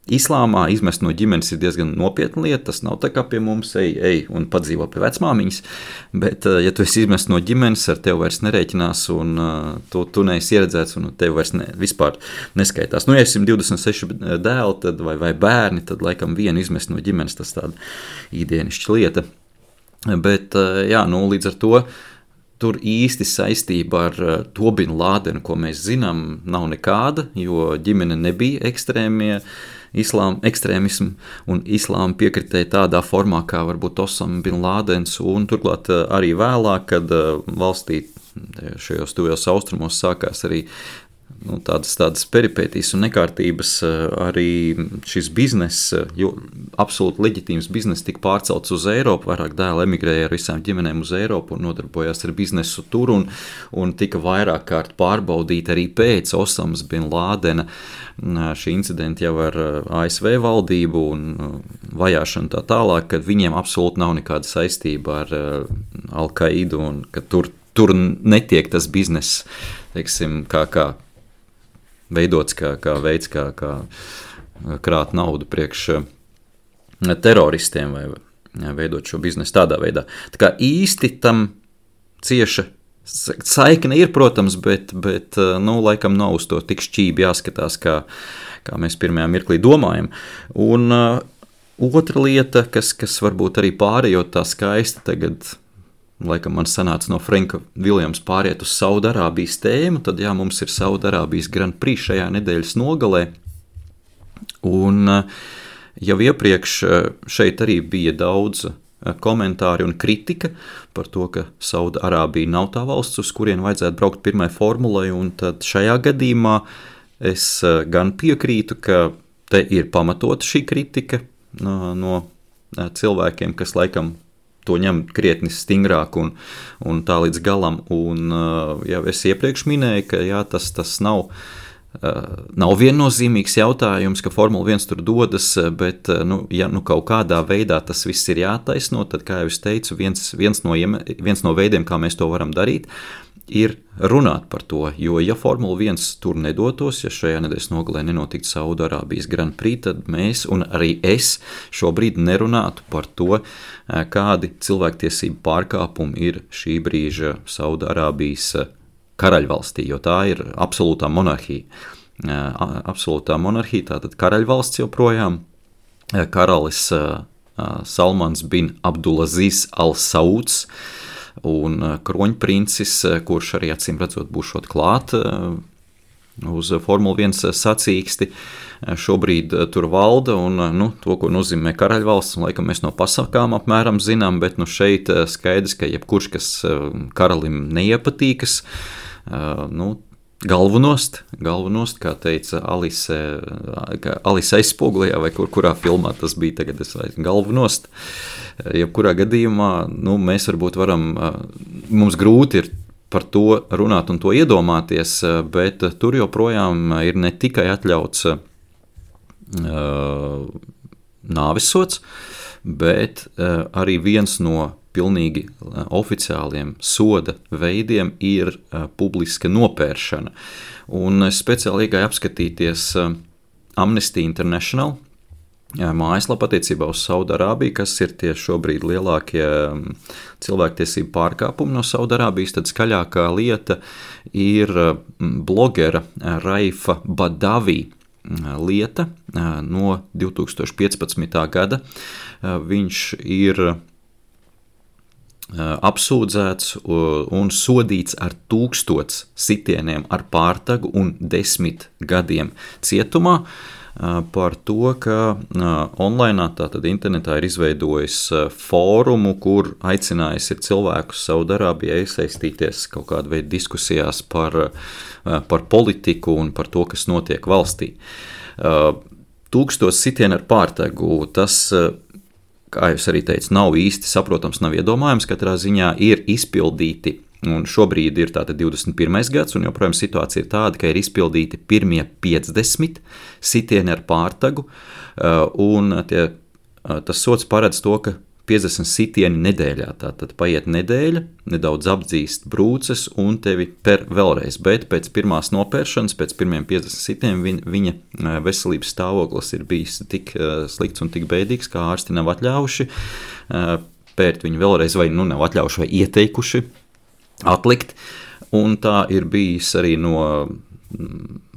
Islāmā izmest no ģimenes ir diezgan nopietna lieta, tas nav tā kā pie mums, ej un padzīvo pie vecmāmiņas, bet ja tu esi izmests no ģimenes, ar tevi vairs nerēķinās, un tu neesi ieredzēts, un tevi vairs vispār neskaitās. Ja 126 dēli tad, vai bērni, tad laikam vienu izmest no ģimenes, tas tāda īdienišķa lieta. Bet, jā, līdz ar to tur īsti saistība ar to Bin Lādenu, ko mēs zinām, nav nekāda, jo ģimene nebija ekstrēmismu un islāma piekritēji tādā formā, kā varbūt Osama Bin Lādens, un turklāt arī vēlāk, kad valstī šajos tuvajos austrumos sākās arī tādas peripētīs un nekārtības, arī šis biznes, jo absolūti leģitīms biznes tika pārcelts uz Eiropu, vairāk dēli emigrēja ar visām ģimenēm uz Eiropu un nodarbojās ar biznesu tur, un tika vairāk kārt pārbaudīti arī pēc Osamas Bin Lādena šī incidenta jau ar ASV valdību un vajāšanu tā tālāk, kad viņiem absolūti nav nekāda saistība ar Al-Qaidu un ka tur netiek tas biznes, teiksim, kā veidots kā veids, kā krāt naudu priekš teroristiem vai veidot šo biznesu tādā veidā. Tā kā īsti tam cieša saikne ir, protams, bet laikam nav uz to tik šķībi jāskatās, kā mēs pirmajā mirklī domājam. Un otra lieta, kas varbūt arī pārējot tā skaisti tagad, laikam man sanāca no Franka Viljams pāriet uz Saudarābijas tēmu, tad jā, mums ir Saudarābijas Grand Prix šajā nedēļas nogalē. Un jau iepriekš šeit arī bija daudz komentāri un kritika par to, ka Saudarābija nav tā valsts, uz kurien vajadzētu braukt pirmai formulai, un tad šajā gadījumā es gan piekrītu, ka te ir pamatota šī kritika no cilvēkiem, kas laikam to ņem krietni stingrāk un tā līdz galam. Un jau es iepriekš minēju, ka jā, tas nav viennozīmīgs jautājums, ka Formula 1 tur dodas, bet ja kaut kādā veidā tas viss ir jātaisno, tad, kā jau es teicu, viens no veidiem, kā mēs to varam darīt, ir runāt par to, jo ja Formula 1 tur nedotos, ja šajā nedēļas nogalē nenotiktu Saudarābijas Grand Prix, tad mēs un arī es šobrīd nerunātu par to, kādi cilvēktiesību pārkāpumi ir šī brīža Saudarābijas karaļvalstī, jo tā ir absolūtā monarhija. Absolūtā monarhija, tātad karaļvalsts joprojām, karalis Salmans bin Abdulaziz Al-Sauds, un kroņprincis, kurš arī acīm redzot būšot klāt uz Formula 1 sacīksti, šobrīd tur valda, un to, ko nozīmē karaļvalsts, un laikam mēs no pasakām apmēram zinām, bet šeit skaidrs, ka jebkurš, kas karalim neiepatīkas, galvanost, kā teica Alise aizspogulējā, vai kurā filmā tas bija tagad, galvanost. Jebkurā gadījumā, mēs varbūt varam, mums grūti ir par to runāt un to iedomāties, bet tur joprojām ir ne tikai atļauts nāvesods, bet arī viens no pilnīgi oficiāliem soda veidiem ir publiska nopēršana. Un speciāli iegāju apskatīties Amnesty International mājaslapa attiecībā uz Saudarābiju, kas ir tie šobrīd lielākie cilvēktiesību pārkāpumi no Saudarābijas, tad skaļākā lieta ir blogera Raifa Badavi lieta no 2015. Gada. Viņš ir apsūdzēts un sodīts ar 1000 sitieniem ar pārtagu un 10 gadiem cietumā par to, ka online, tātad internetā ir izveidojis fórumu, kur aicinājis ir cilvēkus Saudarābijā iesaistīties kaut kāda veida diskusijās par politiku un par to, kas notiek valstī. 1000 sitieni ar pārtagu, tas, kā jūs arī teicu, nav īsti saprotams, nav iedomājams, katrā ziņā ir izpildīti. Un šobrīd ir tātad 21. gads, un joprojām situācija ir tāda, ka ir izpildīti pirmie 50 sitieni ar pārtagu, un tas sods paredz to, ka 50 sitieni nedēļā, tātad paiet nedēļa, nedaudz apdzīst brūces un tevi per vēlreiz, bet pēc pirmās nopēršanas, pēc pirmiem 50 sitieniem viņa veselības stāvoklis ir bijis tik slikts un tik bēdīgs, kā ārsti nav atļaujuši pērt viņu vēlreiz vai nav atļaujuši vai ieteikuši atlikt, un tā ir bijis arī no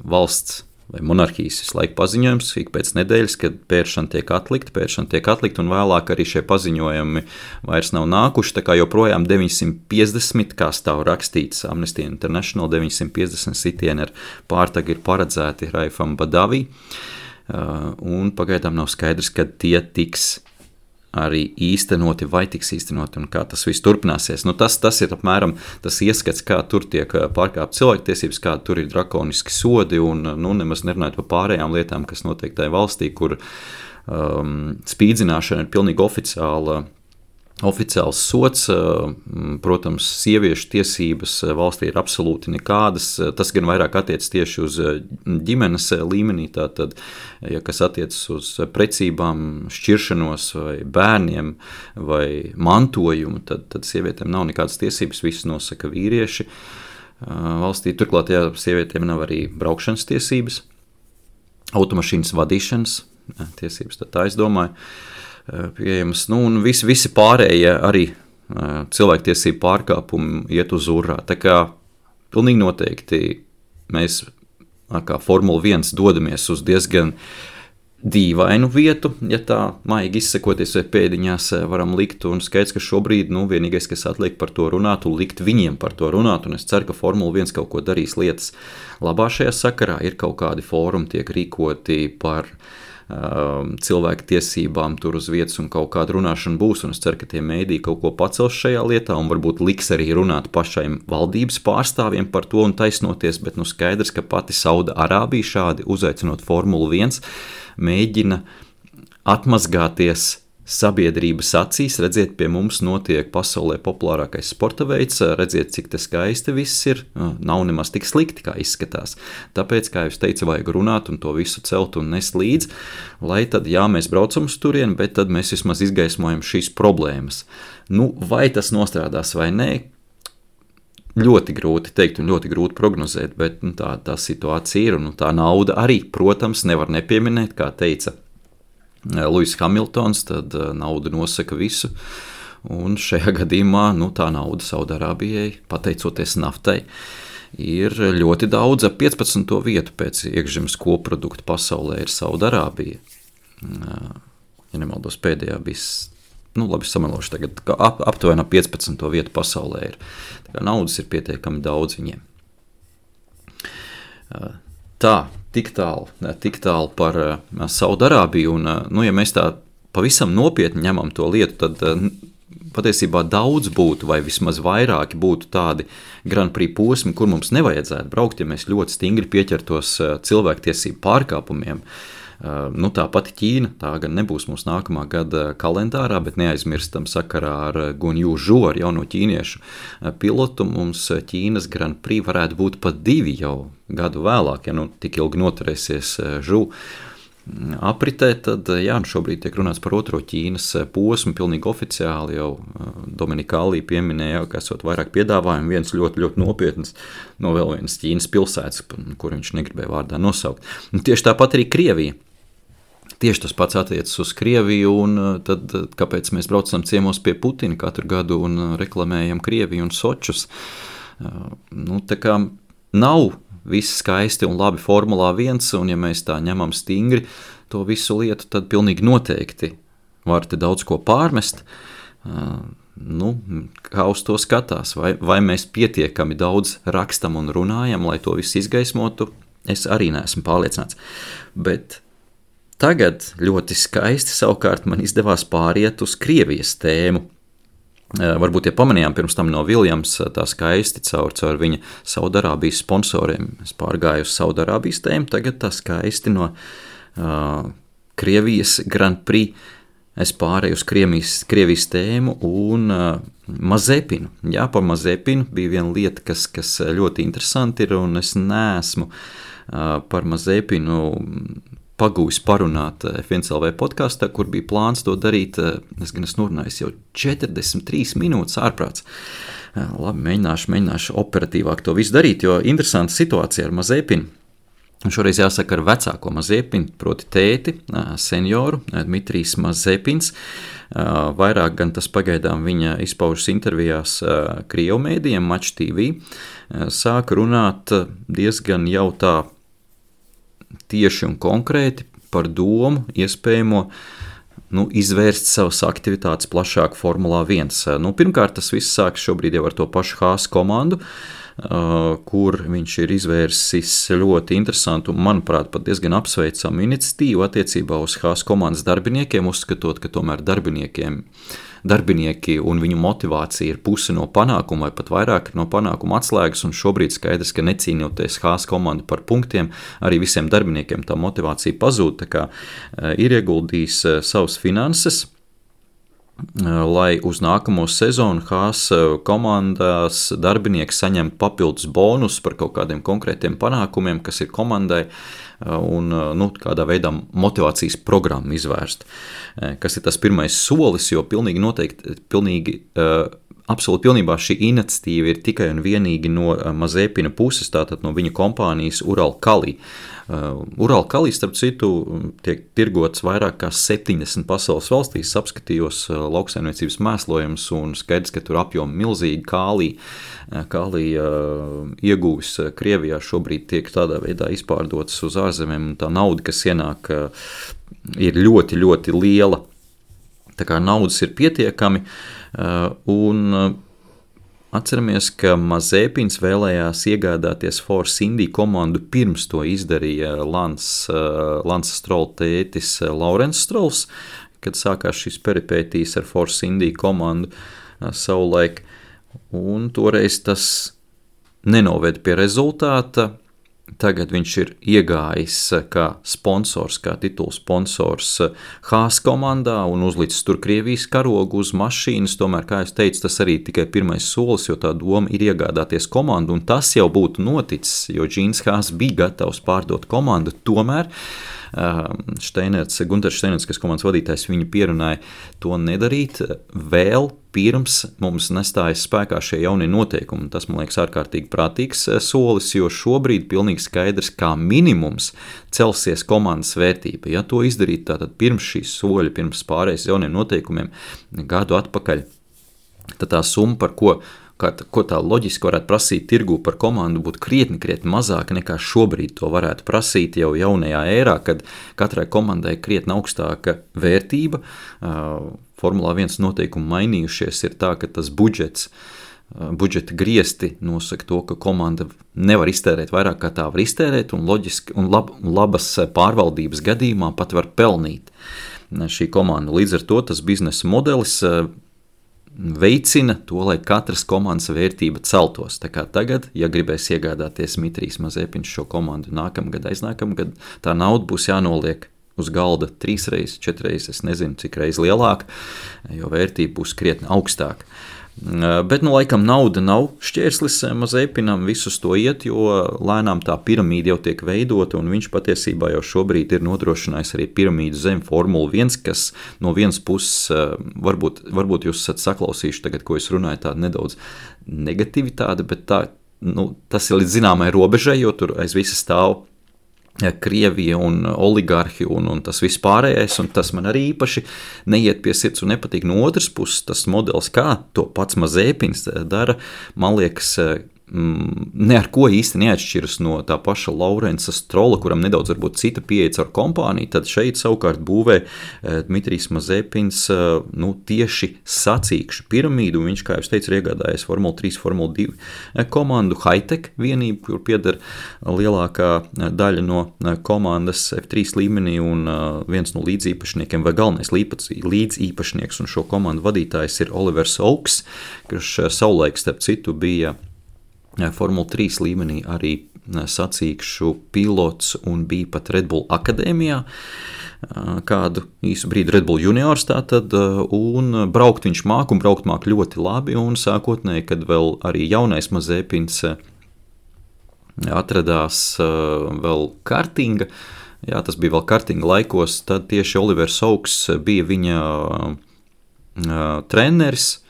valsts vai monarhijas visu laiku paziņojums, ik pēc nedēļas, kad pēršana tiek atlikta, un vēlāk arī šie paziņojumi vairs nav nākuši, tā kā joprojām 950, kā stāv rakstīts Amnesty International, 950 sitieni ar pārtagu ir paredzēti Raifam Badavī, un pagaidām nav skaidrs, kad tie tiks arī īstenoti vai tiks īstenoti un kā tas viss turpināsies. Tas ir apmēram tas ieskats, kā tur tiek pārkāpt cilvēktiesības, kā tur ir drakoniski sodi un nemaz nerunājot par pārējām lietām, kas notiek tajā valstī, kur spīdzināšana ir pilnīgi oficiāls sots. Protams, sieviešu tiesības valstī ir absolūti nekādas. Tas gan vairāk attiecas tieši uz ģimenes līmenī, tātad, ja kas attiecas uz precībām, šķiršanos vai bērniem vai mantojumu, tad sievietēm nav nekādas tiesības, viss nosaka vīrieši. Valstī turklāt, ja sievietēm nav arī braukšanas tiesības, automašīnas vadīšanas tiesības, tad tā es domāju, pieejamas, un visi pārējie arī cilvēktiesību pārkāpumi iet uz urā. Tā kā pilnīgi noteikti mēs kā Formula 1 dodamies uz diezgan dīvainu vietu, ja tā maigi izsakoties vai pēdiņās varam likt, un skaidrs, ka šobrīd vienīgais, kas atliek par to runāt un likt viņiem par to runāt, un es ceru, ka Formula 1 kaut ko darīs lietas labā šajā sakarā, ir kaut kādi fórumi tiek rīkoti par cilvēku tiesībām tur uz vietas un kaut kāda runāšana būs, un es ceru, ka tie mēdī kaut ko pacels šajā lietā un varbūt liks arī runāt pašiem valdības pārstāvjiem par to un taisnoties, bet skaidrs, ka pati Sauda-Arābija šādi uzaicinot Formulu 1 mēģina atmazgāties sabiedrības acīs, redziet, pie mums notiek pasaulē populārākais sporta veids, redziet, cik te skaisti viss ir, nav nemaz tik slikti, kā izskatās. Tāpēc, kā jūs teicu, vajag runāt un to visu celt un nest līdz, lai tad, jā, mēs braucam uz turieni, bet tad mēs vismaz izgaismojam šīs problēmas. Vai tas nostrādās vai nē, ļoti grūti teikt un ļoti grūti prognozēt, bet tā situācija ir, un tā nauda arī, protams, nevar nepieminēt, kā teica Lewis Hamiltons, tad nauda nosaka visu, un šajā gadījumā tā nauda Saudarābijai, pateicoties naftai, ir ļoti daudz. 15. vietu pēc iekšzemes koprodukta pasaulē ir Saudarābija. Ja nemaldos, pēdējā bija, labi samelošu tagad, aptuveni 15. vietu pasaulē ir. Tā kā naudas ir pietiekami daudz viņiem. Tik tālu par Saudarābiju, un ja mēs tā pavisam nopietni ņemam to lietu, tad patiesībā daudz būtu, vai vismaz vairāki būtu tādi Grand Prix posmi, kur mums nevajadzētu braukt, ja mēs ļoti stingri pieķertos cilvēktiesību pārkāpumiem. Tā pati Ķīna, tā gan nebūs mūsu nākamā gada kalendārā, bet neaizmirstam sakarā ar Guanyu Zhou, ar jauno ķīniešu pilotu, mums Ķīnas Grand Prix varētu būt pat 2 jau gadu vēlāk, ja tik ilgi noturēsies Zhou apritē, tad šobrīd tiek runāts par otro Ķīnas posmu, pilnīgi oficiāli jau Dominikālī pieminēja, ka esot vairāk piedāvājumu, viens ļoti, ļoti nopietns no vēl vienas Ķīnas pilsētas, kur viņš negribēja vārdā nosaukt. Un tieši tāpat arī Krievija. Tieši tas pats attiecas uz Krieviju, un tad kāpēc mēs braucam ciemos pie Putina katru gadu un reklamējam Krieviju un Sočus? Tā kā nav viss skaisti un labi Formulā 1, un ja mēs tā ņemam stingri to visu lietu, tad pilnīgi noteikti var te daudz ko pārmest. Kā uz to skatās, vai mēs pietiekami daudz rakstam un runājam, lai to visu izgaismotu, es arī neesmu pārliecināts. Bet tagad ļoti skaisti savukārt man izdevās pāriet uz Krievijas tēmu. Varbūt, ja pamanījām pirms tam no Viljams, tā skaisti caur viņa Saudarābijas sponsoriem. Es pārgāju uz Saudarābijas tēmu, tagad tā skaisti no Krievijas Grand Prix. Es pārēju uz Krievijas tēmu un Mazepinu. Jā, par Mazepinu bija viena lieta, kas ļoti interesanti ir, un es neesmu par Mazepinu pagūs parunāt F1LV podkastā, kur bija plāns to darīt. Es norunājos jau 43 minūtes ārprāts. Labi, mēģināšu operatīvāk to visu darīt, jo interesanta situācija ar Mazepinu. Un šoreiz jāsaka ar vecāko Mazepinu, proti tēti, senioru, Dmitrijs Mazepins. Vairāk gan tas pagaidām viņa izpaužas intervijās Krievu mēdījiem, Match TV. Sāka runāt diezgan jau tā tieši un konkrēti par domu iespējamo izvērst savas aktivitātes plašāk Formulā 1. Pirmkārt, tas viss sākas šobrīd jau ar to pašu Haas komandu, kur viņš ir izvērsis ļoti interesantu un, manuprāt, pat diezgan apsveicamu iniciatīvu attiecībā uz Haas komandas darbiniekiem, uzskatot, ka tomēr darbinieki un viņu motivācija ir puse no panākuma vai pat vairāk no panākuma atslēgas, un šobrīd skaidrs, ka necīnoties Haas komandu par punktiem, arī visiem darbiniekiem tā motivācija pazūd, tā kā ir ieguldījis savas finanses, lai uz nākamo sezonu Haas komandas darbinieki saņemtu papildus bonus par kaut kādiem konkrētiem panākumiem, kas ir komandai, un kādā veidā motivācijas programmu izvērst. Kas ir tas pirmais solis, jo absolūti pilnībā šī iniciatīva ir tikai un vienīgi no Mazepina puses, tātad no viņa kompānijas Uralkali. Uralkali, starp citu, tiek tirgots vairāk kā 70 pasaules valstīs, apskatījos lauksaimniecības mēslojumus un skaidrs, ka tur apjomi milzīgi kālija ieguvis Krievijā šobrīd tiek tādā veidā izpārdotas uz ārzemēm, un tā nauda, kas ienāk, ir ļoti, ļoti liela. Tā kā naudas ir pietiekami, un atceramies, ka Mazepins vēlējās iegādāties Force India komandu pirms to izdarīja Lance Stroll tētis Laurens Strolls, kad sākās šis peripētīs ar Force India komandu savulaik, un toreiz tas nenoved pie rezultāta. Tagad viņš ir iegājis kā sponsors, kā titula sponsors Haas komandā un uzlicis tur Krievijas karogu uz mašīnas. Tomēr, kā es teicu, tas arī tikai pirmais solis, jo tā doma ir iegādāties komandu, un tas jau būtu noticis, jo Džīns Haas bija gatavs pārdot komandu. Tomēr Gunters Steinerts, kas komandas vadītājs, viņu pierunāja to nedarīt vēl pirms mums nestājas spēkā šie jaunie noteikumi. Tas, man liekas, ārkārtīgi prātīgs solis, jo šobrīd pilnīgi skaidrs, kā minimums celsies komandas vērtība. Ja to izdarīt tātad pirms šīs soļa, pirms pārējais jauniem noteikumiem gadu atpakaļ, tad tā summa, par ko tā loģiski varētu prasīt tirgū par komandu, būtu krietni mazāka nekā šobrīd to varētu prasīt jau jaunajā ērā, kad katrai komandai krietni augstāka vērtība. Formulā 1 noteikumi mainījušies, ir tā, ka tas budžeta griesti nosaka to, ka komanda nevar iztērēt vairāk, kā tā var iztērēt, un loģiski un labas pārvaldības gadījumā pat var pelnīt šī komanda. Līdz ar to tas biznesa modelis veicina to, lai katras komandas vērtība celtos. Tā kā tagad, ja gribēs iegādāties Dmitrijs Mazepins šo komandu nākamgad, aiznākamgad, tā nauda būs jānoliek uz galda 3 reizes, 4 reizes, es nezinu, cik reiz lielāka, jo vērtība būs krietni augstāka. Bet, laikam nauda nav šķērslis Mazepinam, visus to iet, jo lēnām tā piramīda jau tiek veidota, un viņš patiesībā jau šobrīd ir nodrošinājis arī piramīdu zem Formula 1, kas no vienas puses, varbūt jūs esat saklausījuši tagad, ko es runāju, tāda nedaudz negativitāte, bet tas ir līdz zināmai robežai, jo tur aiz visa stāv Krievija un oligarhi un tas viss pārējais, un tas man arī īpaši neiet pie sirds un nepatīk. No otras puses, tas modelis, kā to pats Mazepins dara, man liekas, ne ar ko īsti neatšķiras no tā paša Laurensa Strolla, kuram nedaudz varbūt cita pieeja ar kompāniju, tad šeit savukārt būvē Dmitrijs Mazepins tieši sacīkšu piramīdu, un viņš, kā jau teicu, ir iegādājies Formula 3, Formula 2 komandu Hitech vienību, kur pieder lielākā daļa no komandas F3 līmenī, un viens no līdzīpašniekiem vai galvenais līdzīpašnieks un šo komandu vadītājs ir Olivers Oaks, kurš savulaik starp citu bija Formula 3 līmenī arī sacīkšu pilots un bija pat Red Bull akadēmijā, kādu īsu brīdi Red Bull juniors tātad, un braukt viņš māk un braukt māk ļoti labi, un sākotnēji, kad vēl arī jaunais Mazepins atradās vēl kartinga, tas bija vēl kartinga laikos, tad tieši Olivers Oaks bija viņa treneris.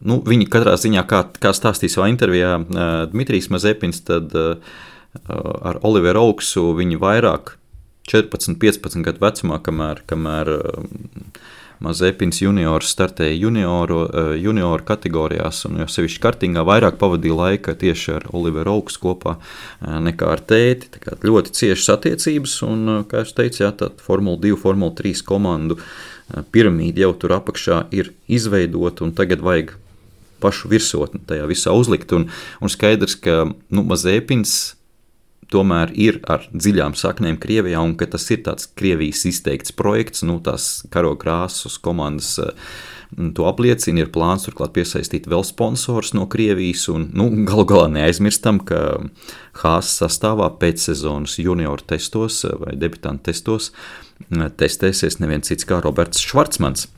Viņi katrā ziņā, kā stāstīja savā intervijā Dmitrijs Mazepins, tad ar Oliveru Oaksu viņi vairāk 14-15 gadu vecumā, kamēr Mazepins juniors startēja junioru kategorijās, un jau sevišķi kartingā vairāk pavadīja laika tieši ar Oliveru Oaks kopā nekā ar tēti. Tā kā ļoti ciešas attiecības, un, kā es teicu, tā Formula 2, Formula 3 komandu piramīda jau tur apakšā ir izveidota, un tagad vajag pašu virsotni tajā visā uzlikt, un skaidrs, ka Mazepins tomēr ir ar dziļām saknēm Krievijā, un ka tas ir tāds Krievijas izteikts projekts, tās karogrāsas komandas to apliecina, ir plāns turklāt piesaistīt vēl sponsors no Krievijas, un galu galā neaizmirstam, ka Haas sastāvā pēcsezonas junioru testos vai debitantu testos testēsies neviens cits kā Roberts Švarcmans.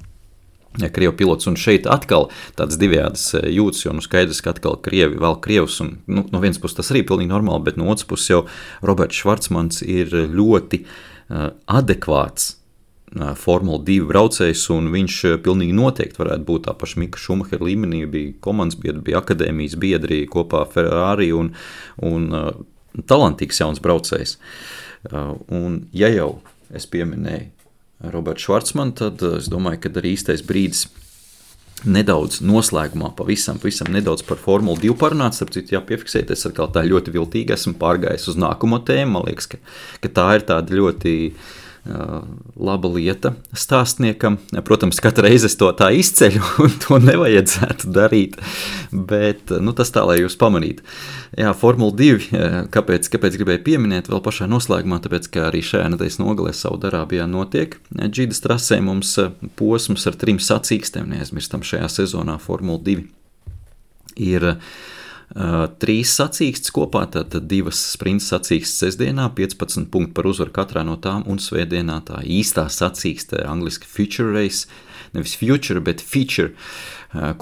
Krievu pilots, un šeit atkal tāds divējādas jūtas, jo skaidrs, ka atkal Krievi vēl Krievus, un no vienas puses tas arī pilnīgi normāli, bet no otras puses jau Roberts Švarcmans ir ļoti adekvāts Formula 2 braucējs, un viņš pilnīgi noteikti varētu būt tā paša Mika Šumahera līmenī, bija komandas biedri, bija akadēmijas biedri kopā Ferrari, un talantīgs jauns braucējs. Un ja jau es pieminēju Roberts Švarcmans, tad es domāju, ka arī īstais brīdis nedaudz noslēgumā pavisam nedaudz par Formulu 2 parunāt, starp citu jāpiefiksēt, es atkal tā ļoti viltīgi esmu pārgājis uz nākamo tēmu, man liekas, ka tā ir tāda ļoti laba lieta stāstniekam. Protams, katru reizi es to tā izceļu, un to nevajadzētu darīt, bet tas tā, lai jūs pamanītu. Jā, Formula 2, kāpēc gribēju pieminēt vēl pašā noslēgumā, tāpēc, ka arī šajā nedēļas nogalē Saudarābijā notiek Džidas trasē mums posms ar 3 sacīkstēm, neaizmirstam šajā sezonā Formula 2 ir 3 sacīkstes kopā, tātad 2 sprints sacīkstes sestdienā, 15 punkti par uzvaru katrā no tām, un svētdienā tā īstā sacīkste, angliski Future Race, nevis Future, bet Feature,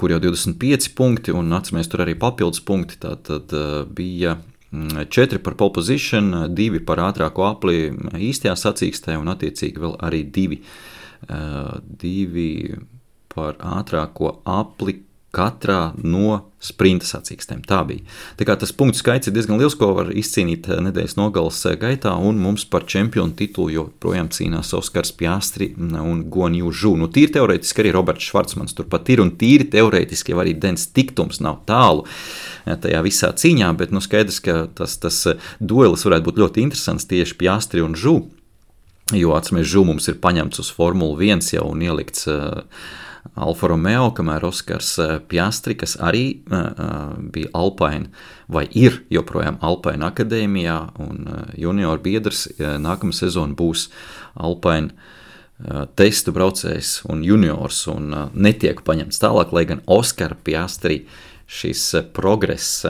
kur jau 25 punkti, un atceramies tur arī papildus punkti, tātad bija 4 par pole position, 2 par ātrāko apli īstajā sacīkstē, un attiecīgi vēl arī 2 par ātrāko apli katrā no sprinta sacīkstēm. Tā bija. Tā kā tas punktu skaits ir diezgan liels, ko var izcīnīt nedēļas nogales gaitā, un mums par čempionu titulu joprojām cīnās Oskars Piastri un Guan Yu Zhu. Tīri teorētiski arī Roberts Švarcmans turpat ir, un tīri teorētiski arī Dens Tiktums nav tālu tajā visā cīņā, bet skaidrs, ka tas duelis varētu būt ļoti interesants tieši Piastri un Zhu, jo atceramies, Zhu mums ir paņemts uz Formulu 1 jau un ielikts Alfa Romeo, kamēr Oskars Piastri, kas arī bija Alpine, vai ir joprojām Alpine akadēmijā, un junior biedrs nākamā sezona būs Alpine testu braucējs un juniors, un netiek paņemts tālāk, lai gan Oskara Piastri šis progress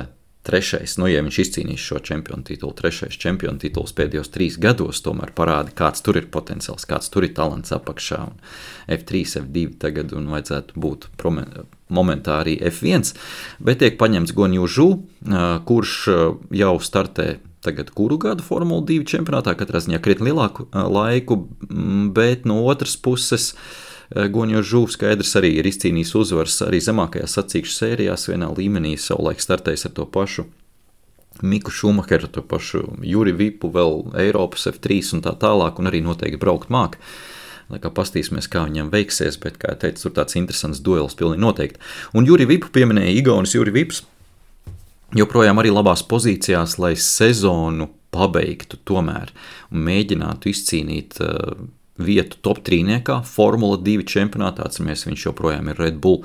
trešais, ja viņš izcīnīs šo čempionu titulu, trešais čempionu tituls pēdējos 3 gados, tomēr parāda, kāds tur ir potenciāls, kāds tur ir talants apakšā, un F3, F2 tagad, un vajadzētu būt momentā arī F1, bet tiek paņemts Guan Yu Zhu, kurš jau startē tagad kuru gadu Formula 2 čempionātā, katrā ziņā krietni lielāku laiku, bet no otras puses Guan Yu Zhu skaidrs arī ir izcīnījis uzvaras arī zemākajās sacīkšu sērijās, vienā līmenī savulaik startējis ar to pašu Miku Šumacheru, to pašu Juri Vipu, vēl Eiropas F3 un tā tālāk, un arī noteikti braukt māk. Lai kā pastīsimies, kā viņam veiksies, bet, kā teicu, tur tāds interesants duels pilnīgi noteikti. Un Juri Vipu pieminēja Igaunis Juri Vips, joprojām arī labās pozīcijās, lai sezonu pabeigtu tomēr un mēģinātu izcīnīt vietu top 3-niekā, Formula 2 čempionātā, atceramies, viņš joprojām ir Red Bull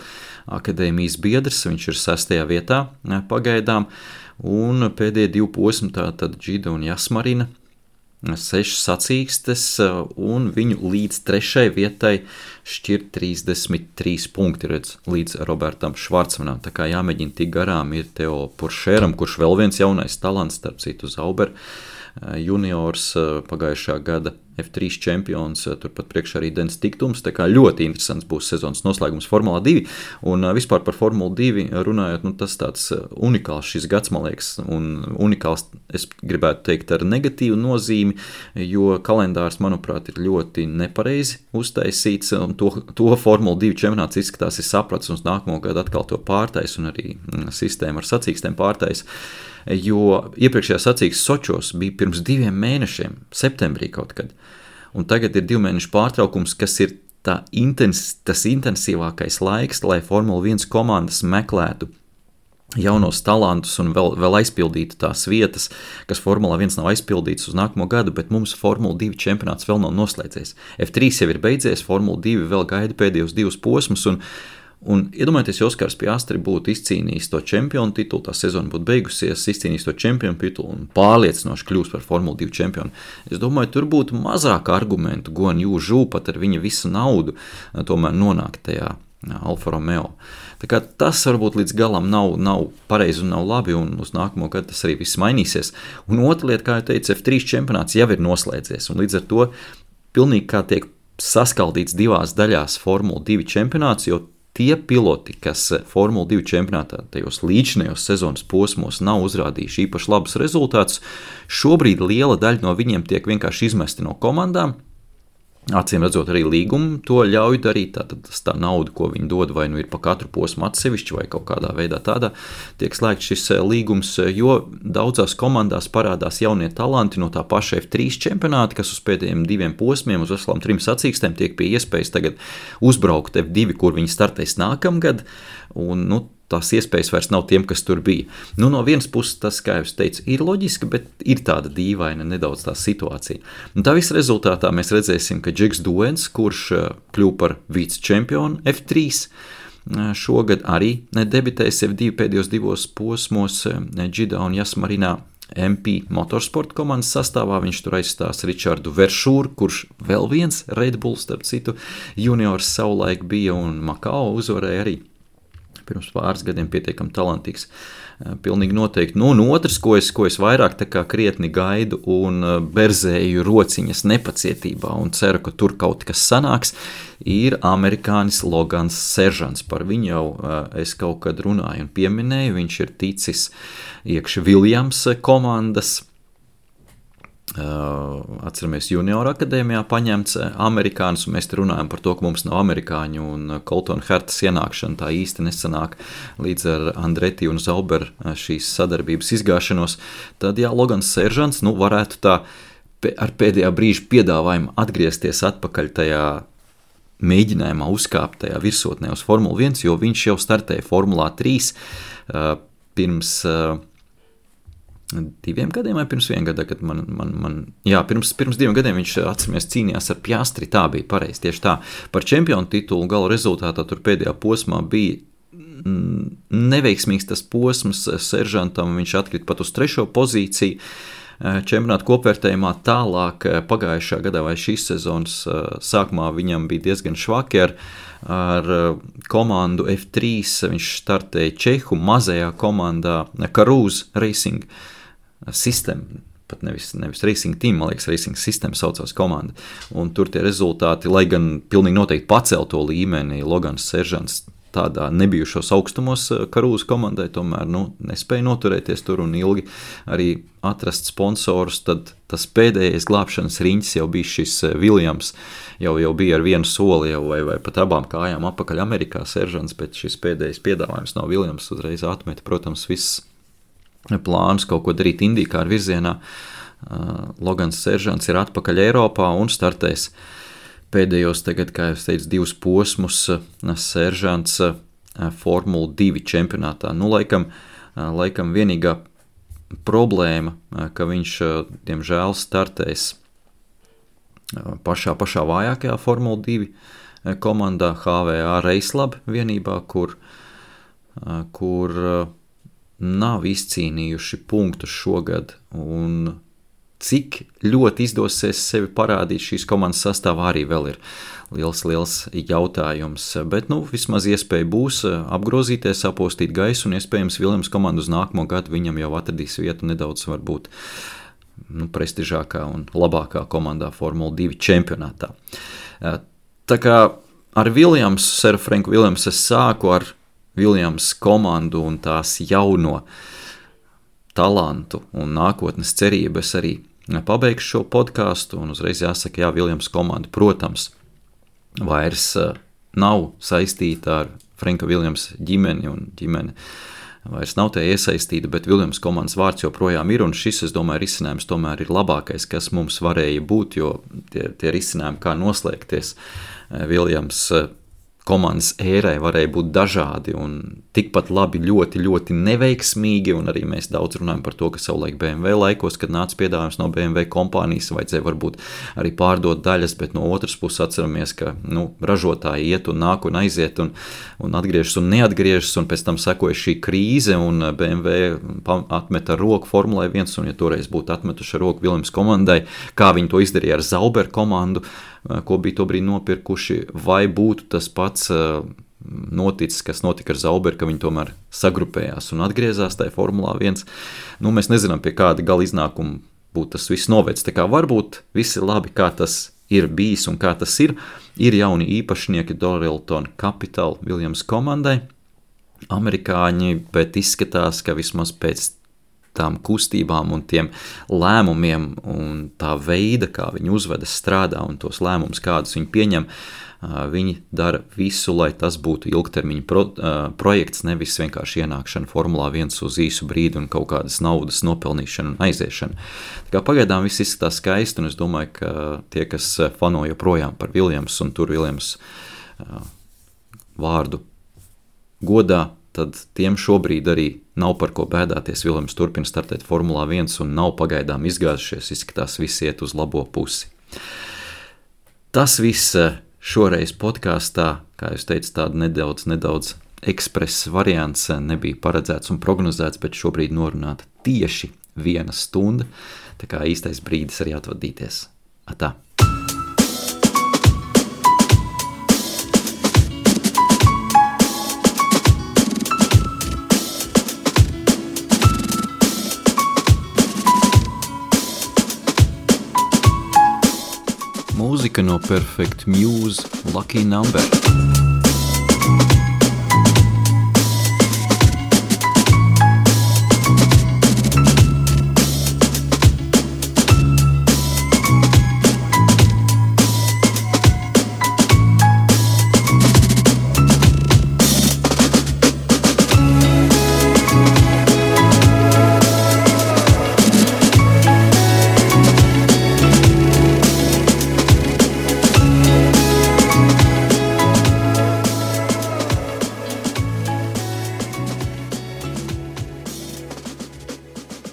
akadēmijas biedrs, viņš ir 6. vietā pagaidām, un pēdējie 2 posmi, tātad Džida un Jasmarina, 6 sacīkstes, un viņu līdz 3. vietai šķir 33 punkti, redz, līdz Robertam Švarcmanam, tā kā jāmēģina tik garām ir Teo Puršēram, kurš vēl viens jaunais talants, starp citu Zauber juniors, pagājušā gada F3 čempions, turpat priekšā arī Dens Tiktums, tā kā ļoti interesants būs sezonas noslēgums Formula 2, un vispār par Formulu 2 runājot, tas tāds unikāls šis gads, man liekas, un unikāls, es gribētu teikt, ar negatīvu nozīmi, jo kalendārs, manuprāt, ir ļoti nepareizi uztaisīts, un to Formula 2 čempionāts izskatās ir saprats, un nākamo gadu atkal to pārtais, un arī sistēma ar sacīkstēm pārtais, jo iepriekšējā sacīkstes Sočos bija pirms 2 mēnešiem, septembrī kaut kad, un tagad ir 2 mēnešu pārtraukums, kas ir tas intensīvākais laiks, lai Formula 1 komandas meklētu jaunos talantus un vēl aizpildītu tās vietas, kas Formula 1 nav aizpildītas uz nākamo gadu, bet mums Formula 2 čempionāts vēl nav noslēdzies. F3 jau ir beidzies, Formula 2 vēl gaida pēdējos 2 posmus, un iedomājieties, ja Oskars Piastri būtu izcīnījis to čempionu titulu, tā sezona būtu beigusies, izcīnījis to čempionu titulu un pārliecinoši kļūst par Formula 2 čempionu. Es domāju, tur būtu mazāk argumentu, Guan Yu Zhu pat ar viņa visu naudu tomēr nonākt tajā Alfa Romeo. Tā kā tas varbūt līdz galam nav pareizi un nav labi, un uz nākamo gadu tas arī viss mainīsies. Un otra lieta, kā jau teicu, F3 čempionāts jau ir noslēdzies, un līdz ar to pilnīgi kā tiek saskaldīts divās daļās Formula 2 čempionāts, jo tie piloti, kas Formula 2 čempionātā tajos līdzinējos sezonas posmos nav uzrādījuši īpaši labus rezultātus, šobrīd liela daļa no viņiem tiek vienkārši izmesti no komandām. Acīm redzot, arī līgumu to ļauj darīt, tā nauda, ko viņi dod, vai nu ir pa katru posmu atsevišķi, vai kaut kādā veidā tādā tiek slēgts šis līgums, jo daudzās komandās parādās jaunie talanti no tā paša F3 čempionāta, kas uz pēdējiem 2 posmiem, uz veselām 3 sacīkstēm tiek pie iespējas tagad uzbraukt F2, kur viņi startēs nākamgad, un tās iespējas vairs nav tiem, kas tur bija. No vienas puses tas, kā jau es teicu, ir loģiski, bet ir tāda dīvaina nedaudz tā situācija. Un tā visa rezultātā mēs redzēsim, ka Džeks Duens, kurš kļuva par vicečempionu F3, šogad arī debitēs F2 pēdējos 2 posmos Džidā un Jasmarinā MP Motorsport komandas sastāvā. Viņš tur aizstās Ričardu Veršūru, kurš vēl viens Red Bull, starp citu, juniors savulaik bija un Makao uzvarēja arī pirms pāris gadiem pietiekami talantīgs. Pilnīgi noteikti. Un otrs, ko es vairāk tā kā krietni gaidu un berzēju rociņas nepacietībā un ceru, ka tur kaut kas sanāks, ir amerikānis Logans Seržants. Par viņu jau es kaut kad runāju un pieminēju. Viņš ir ticis iekš Williams komandas. Atceramies, Junior akadēmijā paņemts amerikānis, un mēs te runājam par to, ka mums nav amerikāņu, un Colton Hertas ienākšana tā īsti nesanāk līdz ar Andretti un Zauber šīs sadarbības izgāšanos. Tad, Logans Seržants varētu tā ar pēdējā brīža piedāvājumu atgriezties atpakaļ tajā mēģinājumā uzkāpt tajā virsotnē uz Formula 1, jo viņš jau startēja Formulā 3 pirms 2 gadiem vai pirms 1 gada, kad pirms 2 gadiem viņš, atceramies, cīnījās ar Piastri, tā bija pareizi, tieši tā. Par čempionu titulu gala rezultātā tur pēdējā posmā bija neveiksmīgs tas posms Seržantam, viņš atkrita pat uz 3. pozīciju čempionāta kopvērtējumā. Tālāk pagājušā gadā vai šīs sezonas sākumā viņam bija diezgan švaki ar komandu F3, viņš startēja Čehu mazajā komandā Karūz Racing System, pat nevis Racing Team, man liekas, Racing System saucās komanda, un tur tie rezultāti, lai gan pilnīgi noteikti pacēl to līmeni, Logans Seržants tādā nebijušos augstumos Karūz komandai, tomēr nespēja noturēties tur un ilgi arī atrast sponsorus, tad tas pēdējais glābšanas riņķis jau bija šis Williams, jau bija ar vienu soli jau vai pat abām kājām apakaļ Amerikā Seržants, bet šis pēdējais piedāvājums no Williams uzreiz atmeta, protams, viss plānus kaut ko darīt IndyCar virzienā. Logans Seržants ir atpakaļ Eiropā un startēs pēdējos tagad, kā jau teicu, 2 posmus Seržants Formula 2 čempionātā. Laikam vienīgā problēma, ka viņš, diemžēl, startēs pašā vājākajā Formula 2 komandā HVA Raclab vienībā, kur nav izcīnījuši punktus šogad, un cik ļoti izdosies sevi parādīt šīs komandas sastāvā arī vēl ir liels jautājums, bet vismaz iespēja būs apgrozīties, apostīt gaisu, un iespējams Williams komandu uz nākamo gadu viņam jau atradīs vietu nedaudz varbūt prestižākā un labākā komandā Formula 2 čempionātā. Tā kā ar Williams, Sir Franku Williams, es sāku ar Williams komandu un tās jauno talantu un nākotnes cerību. Es arī pabeigšu šo podcastu un uzreiz jāsaka, Williams komanda, protams, vairs nav saistīta ar Franka Williams ģimeni, un ģimene vairs nav tie iesaistīti, bet Viljams komandas vārds joprojām ir, un šis, es domāju, risinājums tomēr ir labākais, kas mums varēja būt, jo tie risinājumi, kā noslēgties Viljams komandas ērai varēja būt dažādi un tikpat labi ļoti, ļoti neveiksmīgi, un arī mēs daudz runājam par to, ka savulaik BMW laikos, kad nāca piedāvājums no BMW kompānijas, vajadzēja varbūt arī pārdot daļas, bet no otras puses atceramies, ka ražotāji iet un nāk un aiziet un atgriežas un neatgriežas, un pēc tam sekoja šī krīze, un BMW atmeta roku Formulai 1, un ja toreiz būtu atmetuši roku Viljams komandai, kā viņi to izdarīja ar Zauber komandu, ko bija tobrīd nopirkuši, vai būtu tas pats noticis, kas notika ar Zauber, ka viņi tomēr sagrupējās un atgriezās tajā Formulā 1. Mēs nezinām, pie kāda gala iznākuma būtu tas viss novēc. Tā kā varbūt visi labi, kā tas ir bijis un kā tas ir jauni īpašnieki Dorilton Capital Viljams komandai, amerikāņi, bet izskatās, ka vismaz pēc tām kustībām un tiem lēmumiem un tā veida, kā viņi uzvedas, strādā un tos lēmumus, kādus viņi pieņem, viņi dara visu, lai tas būtu ilgtermiņa projekts, nevis vienkārši ienākšana Formulā 1 uz īsu brīdi un kaut kādas naudas nopelnīšana un aiziešana. Tā kā pagaidām viss izskatās skaisti, un es domāju, ka tie, kas fano joprojām par Viljams un tur Viljams vārdu godā, tad tiem šobrīd arī nav par ko bēdāties. Viljams turpina startēt Formulā 1 un nav pagaidām izgāzušies, izskatās visi iet uz labo pusi. Tas viss šoreiz podkāstā, kā jūs teicat, tāda nedaudz ekspress variants nebija paredzēts un prognozēts, bet šobrīd norunāta tieši 1 stunda, tā kā īstais brīdis arī atvadīties. Atā! Mūzika no Perfect Muse Lucky Number.